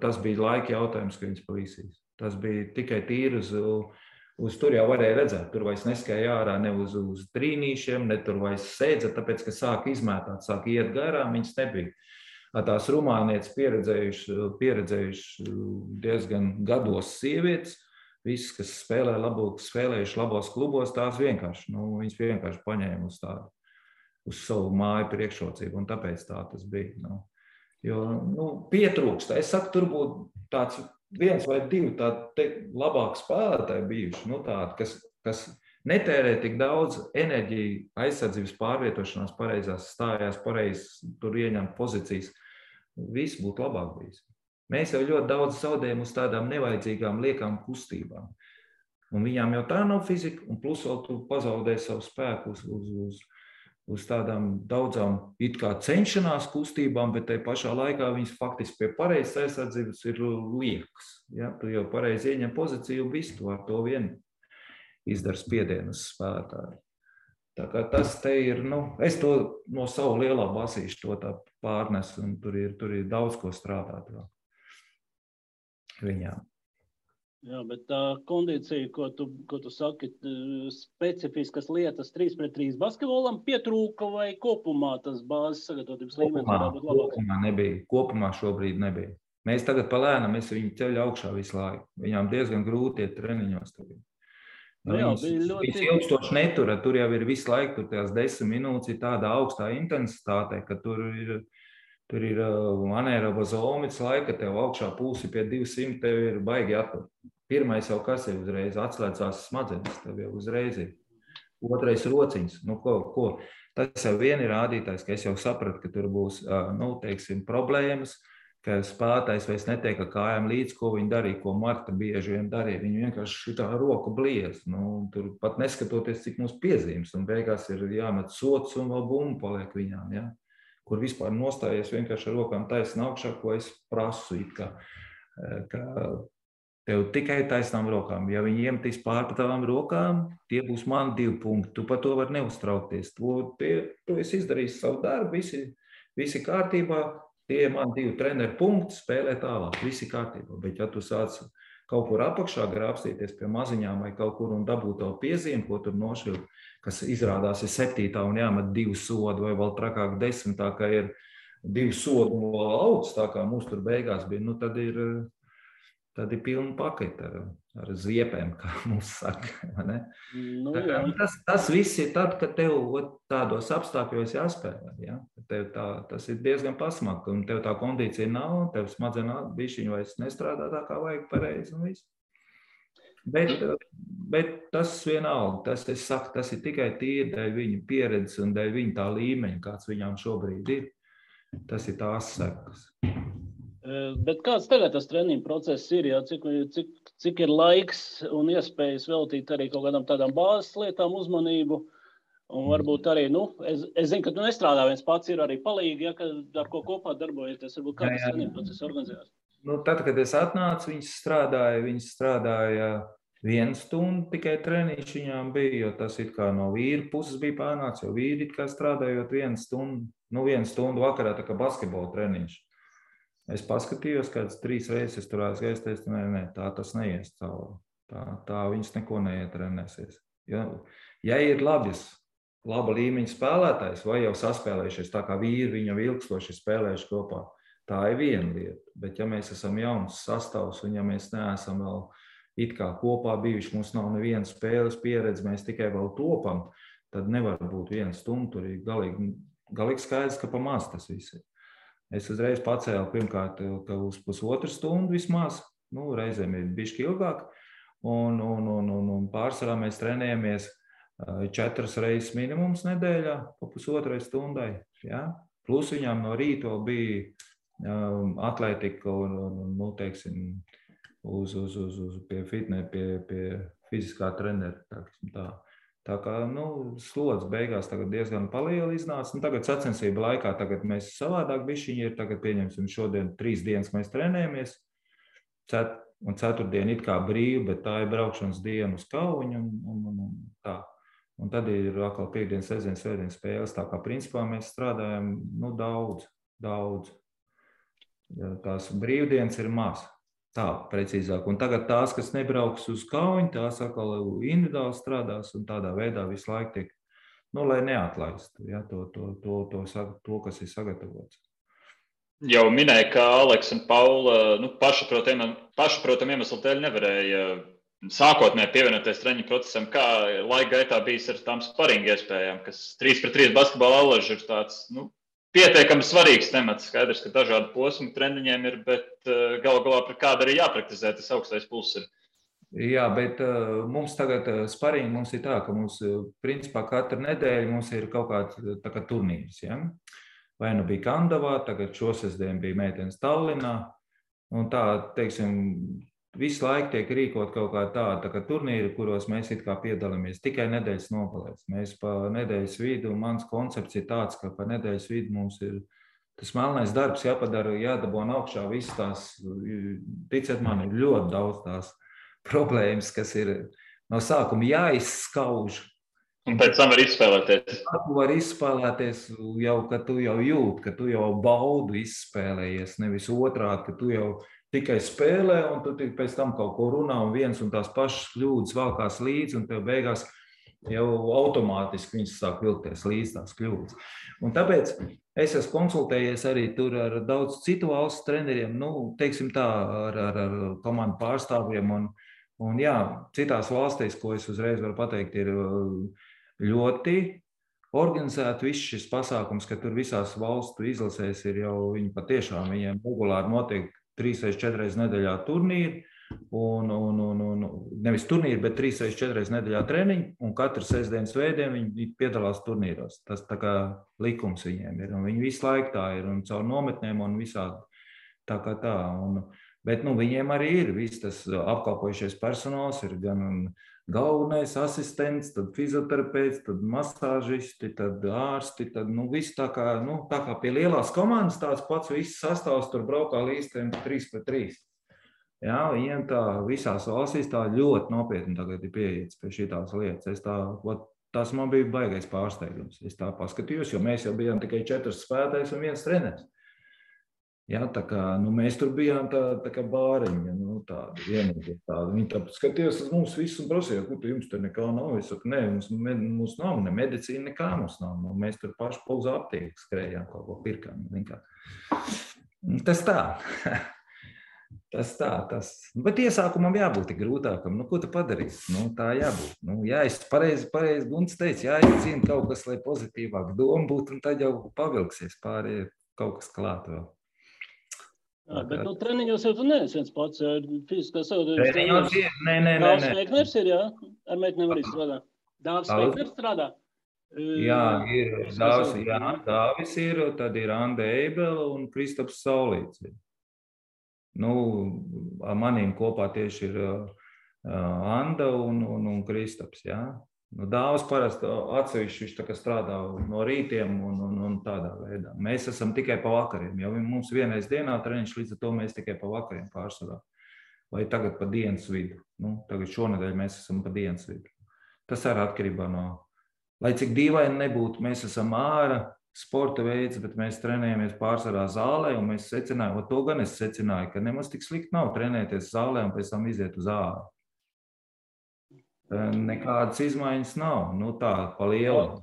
Tas bija laika jautājums, ka viņas pavisīs. Tas bija tikai tīri uz tur jau varēja redzēt. Tur vairs neskēja ārā ne uz trīnīšiem, ne tur vairs sēdza, tāpēc, ka sāk izmētāt, sāk iet garām, viņas nebija. Tās rumānietes pieredzējuši diezgan gados sievietes, visas, kas spēlējuši labos klubos, tās viņas vienkārši paņēma uz savu māju priekšrocību, un tāpēc tā tas bija. Jo pietrūkst. Es saku, tur būtu tāds 1 vai 2 tādi labāki spēlētāji bijuši, tādi, kas netērē tik daudz enerģiju aizsardzības pārvietošanās pareizās, stājās pareizi, tur ieņemt pozīcijas. Viss būtu labāk bijis. Mēs jau ļoti daudz zaudējam uz tādām nevajadzīgām liekām kustībām. Un viņām jau tā nav fizika, un plus vēl tu pazaudē savu spēku uz tādām daudzām it kā cenšanās kustībām, bet tai pašā laikā viņas faktiski pie pareizas aizsardzības ir liekas. Ja? Tu jau pareizi ieņem pozīciju, visu tu ar to vien izdara spiedienu uz spēlētāju. Tā kā tas te ir, es to no savu lielā basīšu to tā pārnesu, un tur ir daudz ko strādāt vēl viņām. Jā, bet tā kondīcija, ko tu saki, specifiskas lietas 3-3 basketbolam pietrūka vai kopumā tas bāzes sagatavotības līmenis varētu būt labāks? Kopumā nebija. Kopumā šobrīd nebija. Mēs tagad palēnām, viņu ceļu augšā visu laiku. Viņām diezgan grūti iet treniņos tagad. Viņas ilgstoši netura, tur jau ir visu laiku, tur tās 10 minūtes ir tāda augstā intensitāte, ka tur ir anaeroba zonas laika, tev augšā pulsi pie 200, tev ir baigi attur. Pirmais jau kas ir uzreiz, atslēdzās smadzenes, tev jau uzreiz ir. Otrais rociņas. Ko? Tas jau vien ir rādītājs, ka es jau sapratu, ka tur būs, problēmas, ka spēlētājs vairs netiek ar kājām līdz, ko viņi darīja, ko Marta bieži vien darīja. Viņi vienkārši šitā roku bliez. Tur pat neskatoties, cik mums piezīmes, un beigās ir jāmet sots un vēl bumba paliek viņām, ja? Kur vispār nostājies vienkārši ar rokām taisnā augšā, ko es prasu, ka tev tikai taisnām rokām. Ja viņi iemetīs pār tavām rokām, tie būs man 2 punkti. Tu par to var neuztraukties. Tu esi izdarījis savu darbu, visi kārtībā, tie man 2 treneru punkti, spēlē tālāk, visi kārtībā. Bet ja tu sāc kaut kur apakšā grābstīties pie maziņām vai kaut kur un dabūt tavu piezīmi, ko tur nošļūt, kas izrādās ir 7. un jāmet 2 sodi, vai vēl trakāk 10. ka ir 2 sodi un vēl augs, tā kā mums tur beigās bija, tad ir pilna paketa ar ziepēm, kā mums saka. Ne? Tas viss ir tad, kad tev tādos apstākļos jāspēlē. Ja? Tas ir diezgan pasmaki, un tev tā kondīcija nav, tev smadzenā bišķiņu vairs nestrādā tā, kā vajag pareizi un viss. Bet tas vienalga, tas ir tikai tīri dēļ viņu pieredzes un dēļ viņu tā līmeņa, kāds viņām šobrīd ir. Tas ir tās sekas. Bet kāds tagad tas treniņu process ir? Ja? Cik ir laiks un iespējas veltīt arī kaut kādām tādām bāzes lietām uzmanību? Un varbūt arī, es zinu, ka tu nestrādā viens pats, ir arī palīgi, ja, ar ko kopā darbojaties. Varbūt kā tas treniņu process organizējās? Tad, kad es atnācu, viņas strādāja 1 stundu tikai treniņš viņām bija, jo tas it kā no vīra puses bija pārnāts, jo vīri it kā strādājot 1 stundu, 1 stundu vakarā, tā kā basketbola treniņš. Es paskatījos, kāds 3 reizes tur aizgājis, teicu, nē, tā tas neies cauri. Tā viņas neko neietrenēsies. Ja ir laba līmeņa spēlētājs, vai jau saspēlējušies, tā kā vīri viņu ilgstoši spēlējuši kopā, tā ir viena lieta. Bet ja mēs esam jauns sastāvs un ja mēs neesam vēl it kā kopā bijuši, mums nav nevienas spēles pieredze, mēs tikai vēl topam, tad nevar būt 1 stundu, tur ir galīgi skaidrs, ka pa maz tas viss ir. Es uzreiz pacēlu pirmkārt, ka uz 1,5 stundu vismaz, reizēm ir bišķi ilgāk, un pārsvarā mēs trenējamies 4 reizes minimums nedēļā, pa 1,5 stundai. Ja? Plus viņām no rīta bija atletika un teiksim, pie fiziskā trenera. Tā kā slods beigās tagad diezgan paliela iznāca. Tagad sacensību laikā mēs savādāk bišķiņi ir. Tagad pieņemsim šodien 3 dienas mēs trenējamies. Un 4. diena it kā brīva, bet tā ir braukšanas diena uz Kauņu un tā. Un tad ir atkal piekdienas, sestdienas, svētdienas spēles. Tā kā principā mēs strādājam daudz. Tās brīvdienas ir maz. Tā, precīzāk. Un tagad tās, kas nebrauks uz Kauņu, tās atkal individuāli strādās un tādā veidā visu laiku tiek, lai neatlaistu, ja, to, kas ir sagatavots. Jau minēja, ka Aleks un Paula pašaprotam iemeslu dēļ nevarēja sākotnēji pievienoties treniņu procesam. Kā laika gaitā bijis ar tām sparinga iespējām, kas 3-pret-3 basketbola allaži ir tāds, pietiekami svarīgs temats. Skaidrs, ka dažādu posmu treniņiem ir, bet galu galā par kādu arī jāpraktizē, tas augstais pulss ir. Jā, bet mums tagad sparingi mums ir tā, ka mums principā katru nedēļu mums ir kaut kāds turnīrs. Ja? Vai bija Kandavā, tagad šosestdien bija meitenes Tallinā. Un tā, teiksim, visu laiku tiek rīkot kaut kā tāda turnīri, kuros mēs it kā piedalāmies tikai nedēļas nogalēs. Mēs pa nedēļas vidu, un mans koncepts ir tāds, ka pa nedēļas vidu mums ir tas melnais darbs jāpadara, jādabona augšā visas tās, ticiet man, ir ļoti daudz tās problēmas, kas ir no sākuma jāizskauž. Un pēc tam var izspēlēties. Tu var izspēlēties jau, ka tu jau jūt, ka tu jau baudu izspēlējies, nevis otrādi, ka tu jau tikai spēlē, un tu pēc tam kaut ko runā, un viens un tās pašas kļūdas valkās līdzi, un tev beigās jau automātiski viņas sāk vilkties līdz tās kļūdas. Un tāpēc es esmu konsultējies arī tur ar daudz citu valstu treneriem, teiksim tā, ar komandu pārstāvjiem, un jā, citās valstīs, ko es uzreiz varu pateikt, ir ļoti organizēti viss šis pasākums, ka tur visās valstu izlasēs ir jau viņi patiešām, viņiem regulāri notiek 3-4 reizes nedēļā turnīri, un nevis turnīri, bet 3-4 reizes nedēļā treniņi, un katru sestdienas svētdienu viņi piedalās turnīros. Tas tā kā likums viņiem ir, un viņi visu laiku tā ir, un caur nometnēm un visādi. Tā kā tā. Bet viņiem arī ir viss tas apkalpojušies personāls, ir gan galvenais asistents, tad fizioterapeits, tad masāžisti, tad ārsti, tad viss tā kā pie lielās komandas tāds pats viss sastāvs tur braukā līdz 3-3. Jā, viņiem tā visās valstīs tā ļoti nopietni tagad ir pieiets pie šitās lietas. Tas man bija baigais pārsteigums. Es tā paskatījos, jo mēs jau bijām tikai 4 spēlētājs un 1 treneris. Jā, tā kā mēs tur bijām tā kā bāriņa, tāda vienīgi tāda. Viņi tā skatījās uz mums visu un prasīja, kur jums tur nekā nav. Es saku, nē, mums nav, ne medicīna, nekā mums nav. Mēs tur paši pa uz aptieku skrējām, kaut ko pirkām. Tas tā. Tas tā. Bet iesākumam jābūt tik grūtākam. Ko tu padarīsi? Tā jābūt. Jāiz pareizi Gunts teica, jāizcīna kaut kas, lai pozitīvāk doma būtu, un tad jau pavilksies pārējie kaut kas klāt vēl. Bet treniņos jau tu neesi viens pats, jo fiziskā savādības treniņos ir, nē. Dāvs Veikners ir, jā? Ar meitenēm arī strādā. Dāvs Veikners strādā? Jā, ir Dāvis ir, tad ir Anda Eibela un Kristaps Saulīts. Manīm kopā tieši ir Anda un Kristaps, jā. Dāvs parasti atsevišķi viņš tā kā strādā no rītiem un tādā veidā. Mēs esam tikai pa vakariem, jo mums vienreiz dienā treniņš, līdz ar to mēs tikai pa vakariem pārsvarā. Vai tagad pa dienas vidu. Tagad šonedēļ mēs esam pa dienas vidu. Tas arī atkarībā no, lai cik dīvaini nebūtu, mēs esam ārā sporta veids, bet mēs trenējamies pārsvarā zālē, un mēs secinājām, to gan es secināju, ka nemaz tik slikti nav trenēties zālē un pēc tam iziet uz āru. Nekādas izmaiņas nav, tā pa lielu.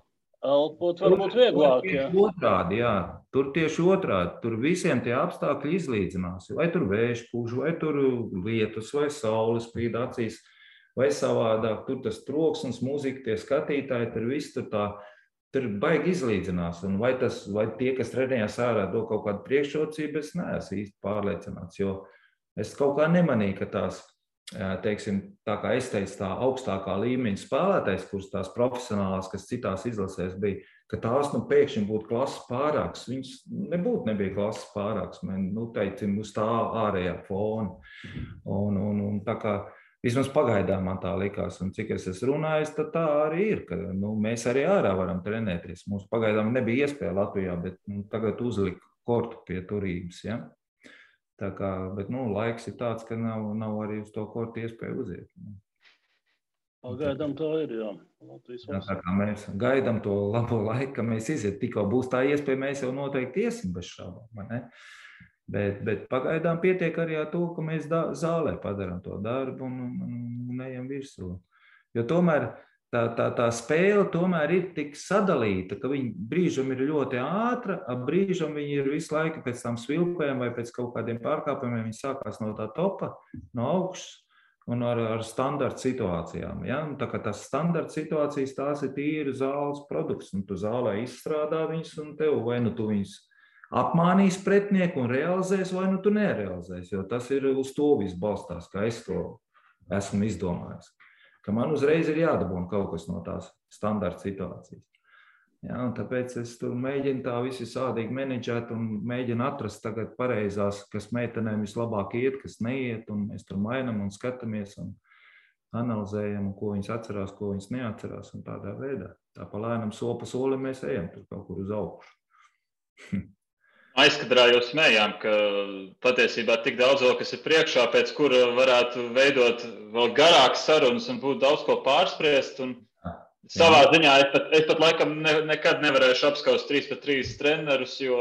Elpot varbūt vieglāk, jā. Otrādi, jā. Tur tieši otrādi, tur visiem tie apstākļi izlīdzinās. Vai tur vējš pūš, vai tur lietus, vai saules spīd acīs, vai savādāk. Tur tas troksnis, mūzika, tie skatītāji, tur viss tur baigi izlīdzinās. Un vai tie, kas trenējās ārā, do kaut kādu priekšrocību, es neesmu īsti pārliecināts, jo es kaut kā nemanīju, ka tās, teiksim, tā kā es teicu, tā augstākā līmeņa spēlētājs, kuras tās profesionālās, kas citās izlasēs bija, ka tās pēkšņi būtu klases pārāks. Viņas nebija klases pārāks, teicim, uz tā ārējā fona. Un tā kā vismaz pagaidām man tā likās, un cik es esmu runājis, tad tā arī ir, ka mēs arī ārā varam trenēties. Mums pagaidām nebija iespēja Latvijā, bet tagad uzlika kortu pie turības, ja? Tā kā, bet laiks ir tāds, ka nav arī uz to kortu iespēju uziet. Pagaidām tā ir, jā. Tā kā mēs gaidām to labo laiku, ka mēs iziet. Tikko būs tā iespēja, mēs jau noteikti iesim bez šaubām, ne? Bet pagaidām pietiek arī ar to, ka mēs zālē padarām to darbu un ejam virsū. Jo tomēr tā spēle tomēr ir tik sadalīta, ka viņa brīžam ir ļoti ātra, brīžam viņa ir visu laiku pēc tam svilpēm vai pēc kaut kādiem pārkāpumiem, viņa sākās no tā topa, no augšas un ar standarta situācijām. Ja? Tā kā tās standarta situācijas, tās ir tīri zāles produkts, un tu zālē izstrādā viņas, un tev vai tu viņas apmānīs pretinieku un realizēs, vai tu nerealizēs, jo tas ir uz to viss balstās, kā es to esmu izdomājis. Ka man uzreiz ir jādabūna kaut kas no tās standarta situācijas. Ja, un tāpēc es tur mēģinu tā visi sādīgi menedžēt un mēģinu atrast tagad pareizās, kas meitenēm vislabāk iet, kas neiet, un mēs tur mainam un skatāmies un analizējam, ko viņas atcerās, ko viņas neatcerās, un tādā veidā. Tā pa lēnam soli pa solim mēs ejam tur kaut kur uz augšu. Aizkadrā jau smējām, ka patiesībā tik daudz vēl, kas ir priekšā, pēc kura varētu veidot vēl garākas sarunas un būtu daudz ko pārspriest. Un savā ziņā es pat laikam nekad nevarēšu apskaust 3-3 trenerus, jo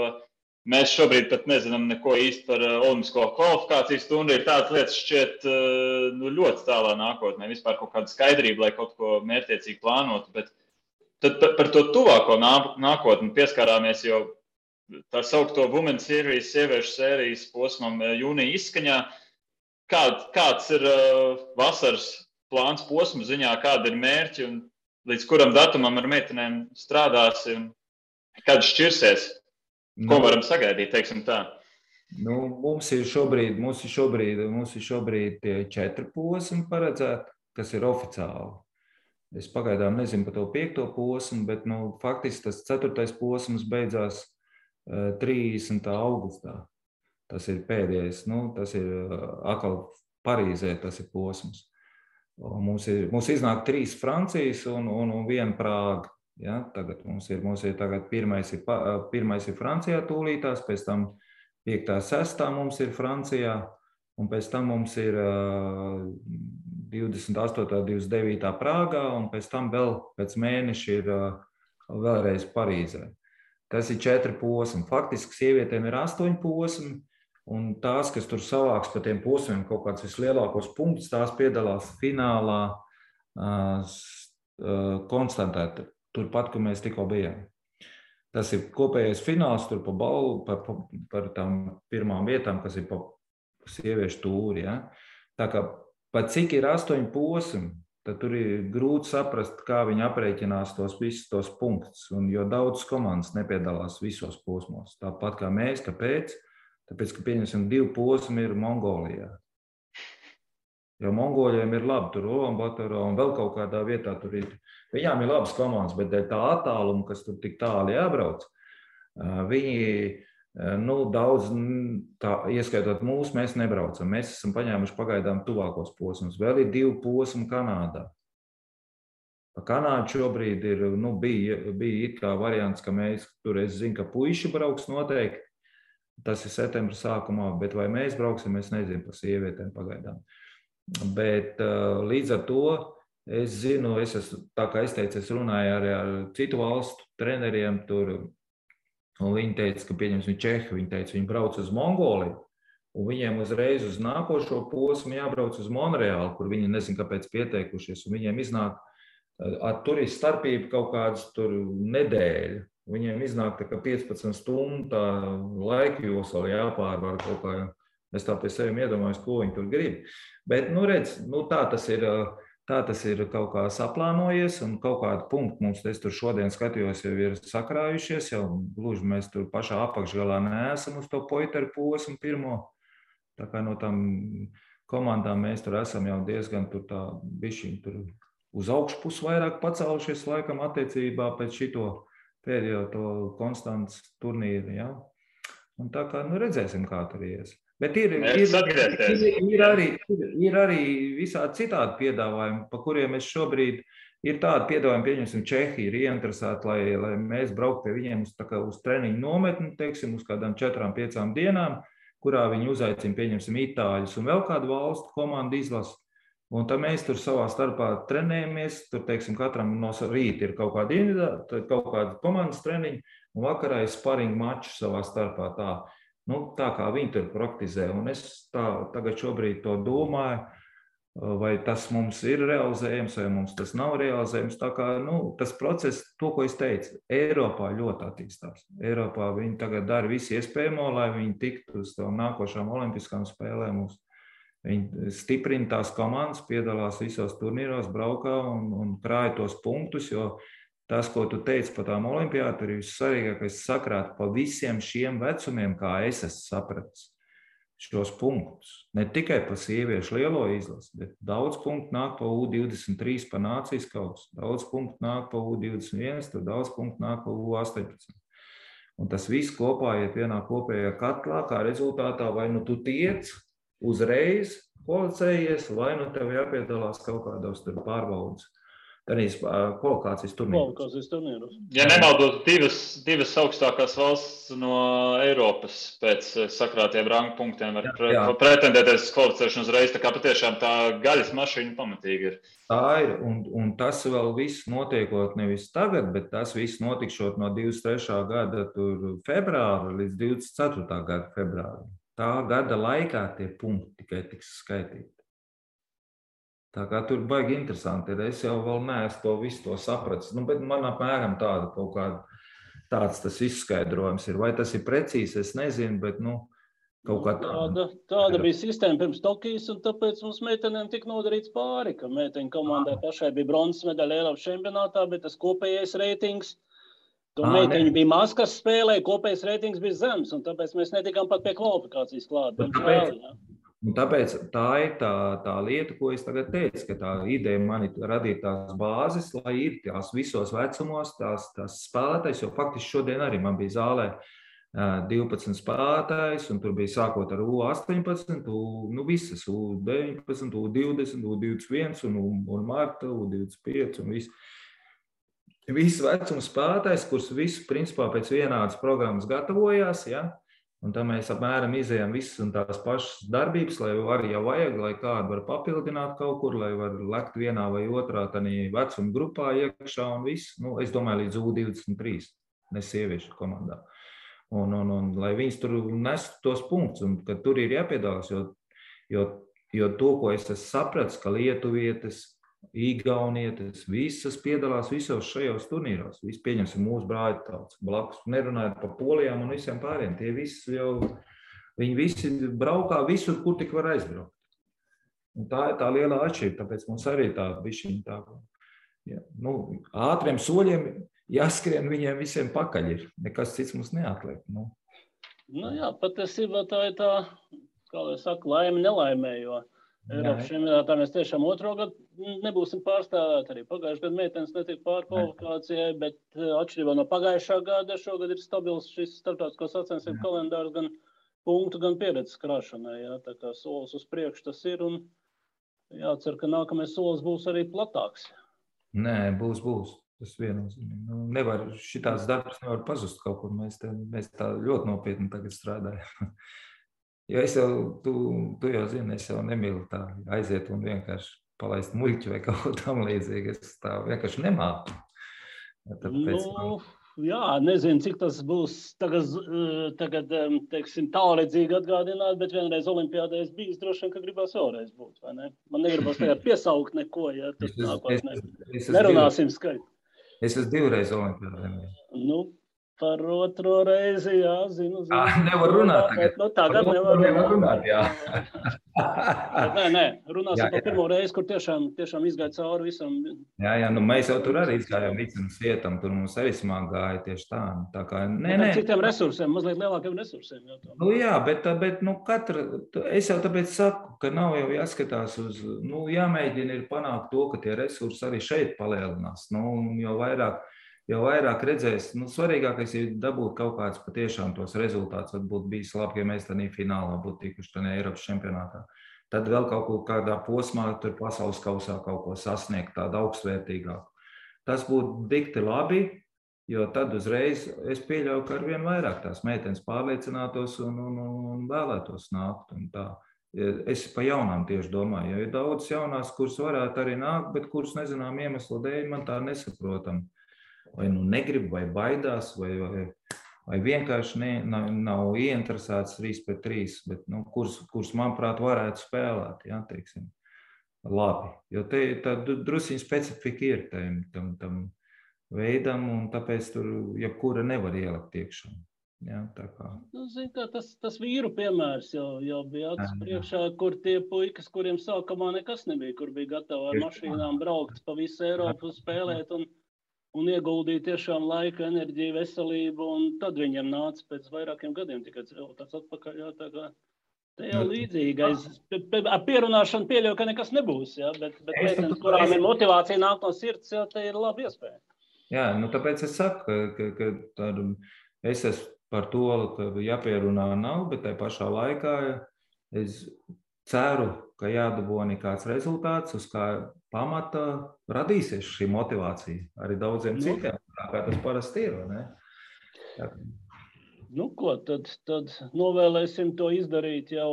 mēs šobrīd pat nezinām neko īsti par olimpisko kvalifikācijas stundu. Ir tādas lietas šķiet ļoti tālā nākotnē, vispār kaut kāda skaidrība, lai kaut ko mērķtiecīgi plānotu. Bet tad par to tuvāko nākotni pieskārāmies jau tā saukto Women's Series, sieviešu sērijas posmam jūnija izskaņā. Kāds ir vasaras plāns posmu ziņā, kāda ir mērķi un līdz kuram datumam ar meitenēm strādāsi un kad šķirsies? Ko varam sagaidīt, teiksim tā? Mums ir šobrīd tie 4 posmi paredzēti, kas ir oficiāli. Es pagaidām nezinu par to 5. posmu, bet faktiski tas 4. posms beidzās 30. augustā. Tas ir pēdējais, tas ir atkal Parīzē, tas ir posms. Mums iznāk 3 Francijas un 1 Prāga. Ja? Tagad mums ir tagad pirmais ir Francijā tūlītās, pēc tam 5. 6. mums ir Francijā, un pēc tam mums ir 28. 29. Prāgā, un pēc tam vēl pēc mēneša ir vēlreiz Parīzē. Tas ir 4 posmi. Faktiski sievietēm ir 8 posmi, un tās, kas tur savāks pa tiem posmiem kaut kāds vislielākos punktus, tās piedalās finālā Konstantē, turpat, kur mēs tikko bijām. Tas ir kopējais fināls tur par tām pirmām vietām, kas ir pa sieviešu tūri. Ja? Tā kā pat cik ir 8 posmi, tad tur ir grūti saprast, kā viņi aprēķinās visus tos punktus, jo daudzas komandas nepiedalās visos posmos. Tāpat kā mēs, kāpēc? Tāpēc, ka pieņemsim 2 posmi ir Mongolijā. Jo Mongoļiem ir labi, tur Ulanbatorā un vēl kaut kādā vietā tur ir. Viņām ir labas komandas, bet dēļ tā attāluma, kas tur tik tāli jābrauc, viņi daudz, ieskaitot mūs, mēs nebraucam. Mēs esam paņēmuši pagaidām tuvākos posmus. Vēl ir 2 posmi Kanādā. Pa Kanādu šobrīd ir, bija it kā variants, ka mēs tur, es zinu, ka puiši brauks noteikti. Tas ir septembra sākumā, bet vai mēs brauksim, es nezinu par sievietēm pagaidām. Bet līdz ar to es zinu, tā kā es teicu, es runāju arī ar citu valstu treneriem tur, un viņi teica, ka pieņemsim Čehi, viņi teica, viņi brauc uz Mongoliju, un viņiem uzreiz uz nākošo posmu jābrauc uz Monreālu, kur viņi nezin, kāpēc pieteikušies, un viņiem iznāk, tur ir starpība kaut kādas tur nedēļa. Viņiem iznāk tā kā 15 stundu laika josla jāpārvar kaut kā. Es tā pie sevi iedomājos, ko viņi tur grib. Bet, redz, tā tas ir kaut kā saplānojies un kaut kādu punktu mums, es tur šodien skatījos, jau ir sakrājušies, jau gluži mēs tur pašā apakšgalā neesam uz to poiteru posmu pirmo. Tā kā no tām komandām mēs tur esam jau diezgan tur tā bišķiņ tur uz augšpus vairāk pacēlušies laikam attiecībā pēc šito pēdējo to Konstants turnīru, ja? Un tā kā, redzēsim, kā tur ies. Bet ir arī visādi citādi piedāvājumi, pa kuriem es šobrīd ir tādi piedāvājumi, pieņemsim, Čehi ir ieinteresēti, lai mēs brauktu pie viņiem uz treniņu nometni, teiksim, uz kādām 4-5 dienām, kurā viņi uzaicina, pieņemsim, Itāļus un vēl kādu valstu komandu izlasu. Un tad mēs tur savā starpā trenējamies, tur, teiksim, katram no rīta ir kaut kāda komandas treniņa, un vakarā ir sparingu maču savā starpā tā. Tā kā viņi tur praktizē, un es tagad šobrīd to domāju, vai tas mums ir realizējams, vai mums tas nav realizējams. Tā kā, tas process, to, ko es teicu, Eiropā ļoti attīstās. Eiropā viņi tagad dara visu iespējamo, lai viņi tiktu uz tām nākošām olimpiskām spēlēm. Viņi stiprina tās komandas, piedalās visos turnīros, braukā un krāja tos punktus, jo tas, ko tu teici par tām olimpiādām, ir vissvarīgākais sakrāt pa visiem šiem vecumiem, kā es esmu sapratis šos punktus. Ne tikai pa sieviešu lielo izlasi, bet daudz punktu nāk pa U23 pa nācijas kausu, daudz punktu nāk pa U21, tur daudz punktu nāk pa U18. Un tas viss kopā iet vienā kopējā katlā, kā rezultātā vai tu tiec uzreiz kvalificējies, vai tev jāpiedalās kaut kādos tur pārbaudas. Tādīs kvalifikācijas turnīros. Ja nemaldos, divas augstākās valsts no Eiropas pēc sakrātiem rangu punktiem var pretendēties kvalificēšanu uzreiz, tā kā patiešām tā gaļas mašīna pamatīgi ir. Tā ir, un tas vēl viss notiekot nevis tagad, bet tas viss notikšot no 23. gada februāra līdz 24. gada februāra. Tā gada laikā tie punkti tikai tiks skaitīti. Tā kā tur baigi interesanti ir. Es jau vēl neesmu to visu to sapratis. Bet man apmēram tāda kaut kāda tāds tas izskaidrojums ir. Vai tas ir precīzi, es nezinu, bet kaut kā tāda. Tāda bija sistēma pirms Tokijas, un tāpēc mums meitenēm tika nodarīts pāri, ka meiteņu komandai pašai bija bronzas medaļa Eiropas čempionātā, bet tas kopējais reitings, to meiteņu bija maz, kas spēlēja, kopējais reitings bija zems, un tāpēc mēs netikām pat pie kvalifikācijas klāt. Tāpēc tā ir tā lieta, ko es tagad teicu, ka tā ideja man ir radīt tās bāzes, lai ir tās visos vecumos, tās spēlētājs, jo faktiski šodien arī man bija zālē 12 spēlētājs, un tur bija sākot ar U18, visas U19, U20, U21 un Marta, U25 un viss vecuma spēlētājs, kurus visus principā pēc vienādas programmas gatavojās, ja? Un tā mēs apmēram izējām visas un tās pašas darbības, lai arī jau vajag, lai kādu var papildināt kaut kur, lai var lekt vienā vai otrā tādā vecuma grupā iekšā un viss. Es domāju, līdz U23, ne sieviešu komandā. Un lai viņas tur nestu tos punktus, un ka tur ir jāpiedalās, jo to, ko es esmu sapratis, ka lietuvietes, igaunietes, visas piedalās visos šajos turnīros. Visi pieņemsim mūsu brāļu tautas blakus, nerunājot par Polijām un visiem pāriem. Tie visi viņi visi braukā visur, kur tik var aizbraukt. Un tā ir tā lielā atšķirība, tāpēc mums arī tā bišķiņa tā, ātriem soļiem jāskrien viņiem visiem pakaļ ir. Nekas cits mums neatliek. Jā, patiesībā tā ir tā, kā lai saka, laime nelaimē, jo Eiropas čempionātā mēs tiešām otro gadu nebūsim pārstāvēti. Arī pagājušajā gadā meitenes netika pārkvalifikācijai, bet atšķirībā no pagājušā gada šogad ir stabils šis starptautisko sacensību kalendārs gan punktu, gan pieredzes krāšanai. Jā, tā kā solis uz priekšu tas ir un jācer, ka nākamais solis būs arī platāks. Nē, būs. Tas viennozīmīgi. Šitās darbs nevar pazust kaut kur. Mēs tā ļoti nopietni tagad strādājam. Jo es jau, tu jau zini, es jau nemīlu tā aiziet un vienkārši palaist muļķi vai kaut ko tam līdzīgi. Es tā vienkārši nemāku. Tāpēc, jā, nezinu, cik tas būs tagad teiksim, tālredzīgi atgādināt, bet vienreiz olimpiādē es bijis, droši vien, ka gribās vēlreiz būt, vai ne? Man negribas tagad piesaukt neko, ja tas nākotnē. Nerunāsim skaļi. Es esmu 2 reizes olimpiādē. Par otro reizi, jā, zinu. Nevar runāt tagad. Tagad nevar runāt, jā. Nē, runāsim par pirmo reizi, kur tiešām izgāja cauri visam. Jā, mēs jau tur arī izgājām visam svietam, tur mums arī smāk gāja tieši tā. Tā kā, citiem resursiem, mazliet lielākiem resursiem. Jā, bet es jau tāpēc saku, ka nav jau jāskatās uz, jāmēģina ir panākt to, ka tie resursi arī šeit palielinās. Jau vairāk redzēs, svarīgākais ir dabūt kaut kāds patiešām tos rezultātus. Varbūt bijis labi, ja mēs tādā finālā būtu tikuši tādā Eiropas čempionātā. Tad vēl kaut kādā posmā tur pasaules kausā kaut ko sasniegt, tādu augstvērtīgāku. Tas būtu dikti labi, jo tad uzreiz es pieļauju, ka arvien vairāk tās meitenes pārliecinātos un vēlētos nākt. Un tā. Es pa jaunām tieši domāju, jo ir daudz jaunās, kuras varētu arī nākt, bet kuras nezinām iemeslu dēļ man tā nesaprotam. Vai negrib, vai baidās, vai vienkārši nav ieinteresēts 3-3, bet kurus, manuprāt, varētu spēlēt, jā, teiksim, labi. Jo tā drusiņa specifika ir tam veidam, un tāpēc tur jebkura nevar ielikt iekšā. Jā, tā kā. Tas vīru piemērs jau bija acis priekšā, kur tie puikas, kuriem sākumā nekas nebija, kur bija gatavi ar mašīnām braukt pa visu Eiropu spēlēt un ieguldīja tiešām laiku, enerģiju, veselību, un tad viņiem nāca pēc vairākiem gadiem tikai tāds atpakaļ. Jā, tā kā te jau līdzīgi. Ar pierunāšanu pieļauju, ka nekas nebūs, jā, bet meitenes, kurām ir motivācija nāk no sirds, jā, te ir laba iespēja. Jā, tāpēc es saku, ka es esmu par to, ka jāpierunā nav, bet tai pašā laikā es ceru, ka jādabūna kāds rezultāts, uz kā pamata radīsies šī motivācija arī daudziem citiem, kā tas parasti ir, vai ne? Tad novēlēsim to izdarīt jau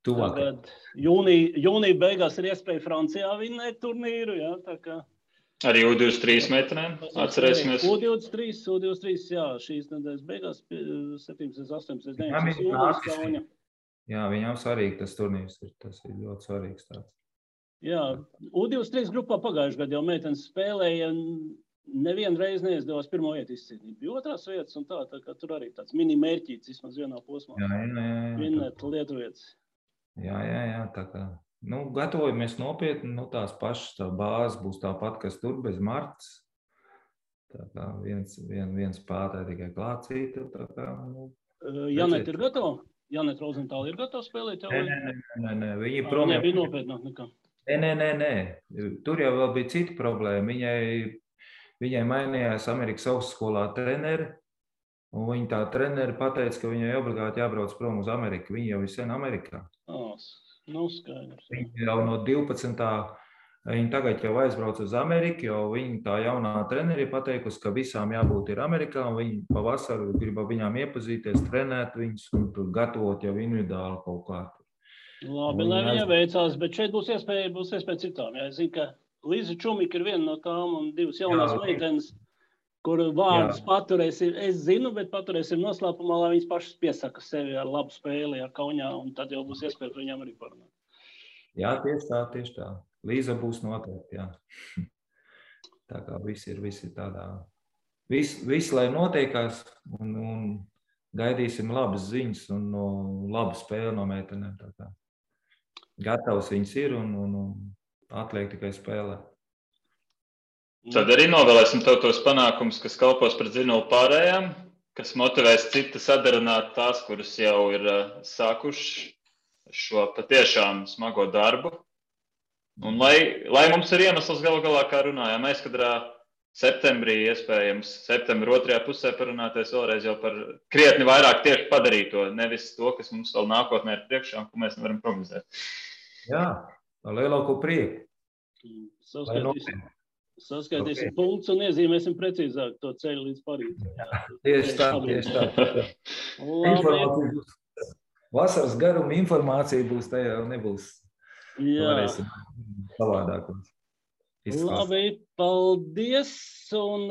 tuvāk. Tagad jūnija beigās ir iespēja Francijā vinnēt turnīru, jā, tā kā. Arī U23 meitenēm, atcerēsimies. U23, jā, šīs nedēļas beigās, 17, 18, 19 jūnijas Kauņa. Jā, viņām svarīgi tas turnīrs ir, tas ir ļoti svarīgs tāds. Jā, U23 grupā pagājušajā gadā jau meitenes spēlēja, nevienu reizi neizdevās pirmo vietu izcīnīt. Bija otrās vietas un tā kā tur arī tāds mini mērķīts, vismaz vienā posmā. Jā. Vinnēt lietuvietas. Jā, tā kā, gatavojamies nopietni, tās pašas tā bāzes būs tāpat, kas tur bez Martas. Tā kā viens spēlētāji tikai klācīta, tā kā, Janet ir gatava? Janet Rozentāla ir gatava spēlēt jau? Nē, viņi prom. Nebija nopietnāk nekā. Nē. Tur jau vēl bija cita problēma. Viņai mainījās Amerikas augstskolā treneri, Un viņa tā treneri pateica, ka viņai obligāti jābrauc prom uz Ameriku. Viņa jau ir sen Amerikā. Skaidrs. Viņa jau no 12. Viņa tagad jau aizbrauc uz Ameriku, jo viņa tā jaunā treneri ir pateikusi, ka visām jābūt ir Amerikā, un viņa pavasaru grib viņām iepazīties, trenēt viņus un tur gatavot jau individuāli kaut kā. Labi, lai viņa veicās, bet šeit būs iespēja citām. Jā, es zinu, ka Līza Čumika ir viena no tām un divas jaunās meitenes, kuru vārdus paturēsim, es zinu, bet paturēsim noslēpumā, lai viņas pašas piesaka sevi ar labu spēli, Kaunijā, un tad jau būs iespēja par viņām arī parunāt. Jā, tieši tā. Līza būs noteikti, jā. Tā kā viss ir tādā. Viss, lai notiekās, un gaidīsim labas ziņas un labu spēli no meitenēm. Tā kā gatavs viņas ir un atliek tikai spēlēt. Tad arī novēlēsim tev tos panākumus, kas kalpos par dzinulu pārējām, kas motivēs citas sadarināt tās, kuras jau ir sākuši šo patiešām smago darbu. Un lai mums ir iemesls galu galā, kā runājām, aizkadrā septembrī, iespējams, septembra otrajā pusē parunāties vēlreiz jau par krietni vairāk tieši padarīto, nevis to, kas mums vēl nākotnē ir priekšā un ko mēs nevaram prognozēt. Jā, ar lielāko prieku. Saskaitīsim punktus un iezīmēsim precīzāk to ceļu līdz Parīzē. Tieši tā. Vasaras garuma informācija būs tajā, nebūs. Varēsim savādāk. Labi, paldies. Un,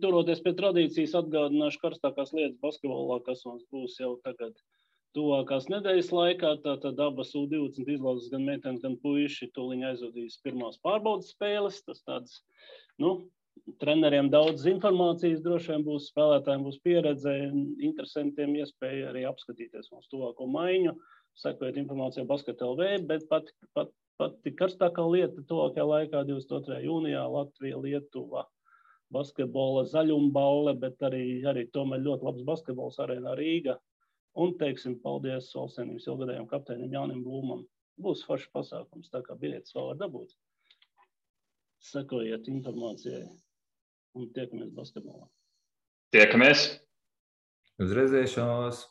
turoties pie tradīcijas, atgādināšu karstākās lietas basketbolā, kas mums būs jau tagad tuvākās nedēļas laikā. Tātad abas U20 izlases, gan meitenes, gan puiši tūliņ aizvadīs pirmās pārbaudas spēles. Tas tāds, treneriem daudz informācijas droši vien būs, spēlētājiem būs pieredze, interesantiem iespēja arī apskatīties mums tuvāko maiņu, sekojot informāciju Basket.lv, bet pati karstākā lieta tuvākajā laikā 22. jūnijā Latvija, Lietuva, basketbola zaļumbaule, bet arī tomēr ļoti labs basketbols arēnā Rīga. Un teiksim paldies Valstsvienības ilgadējiem kapteinim Jānim Blūmam. Būs foršs pasākums, tā kā biļetes vēl var dabūt. Sekojiet informācijai un tiekamies basketbolā. Tiekamies! Uz redzēšanos!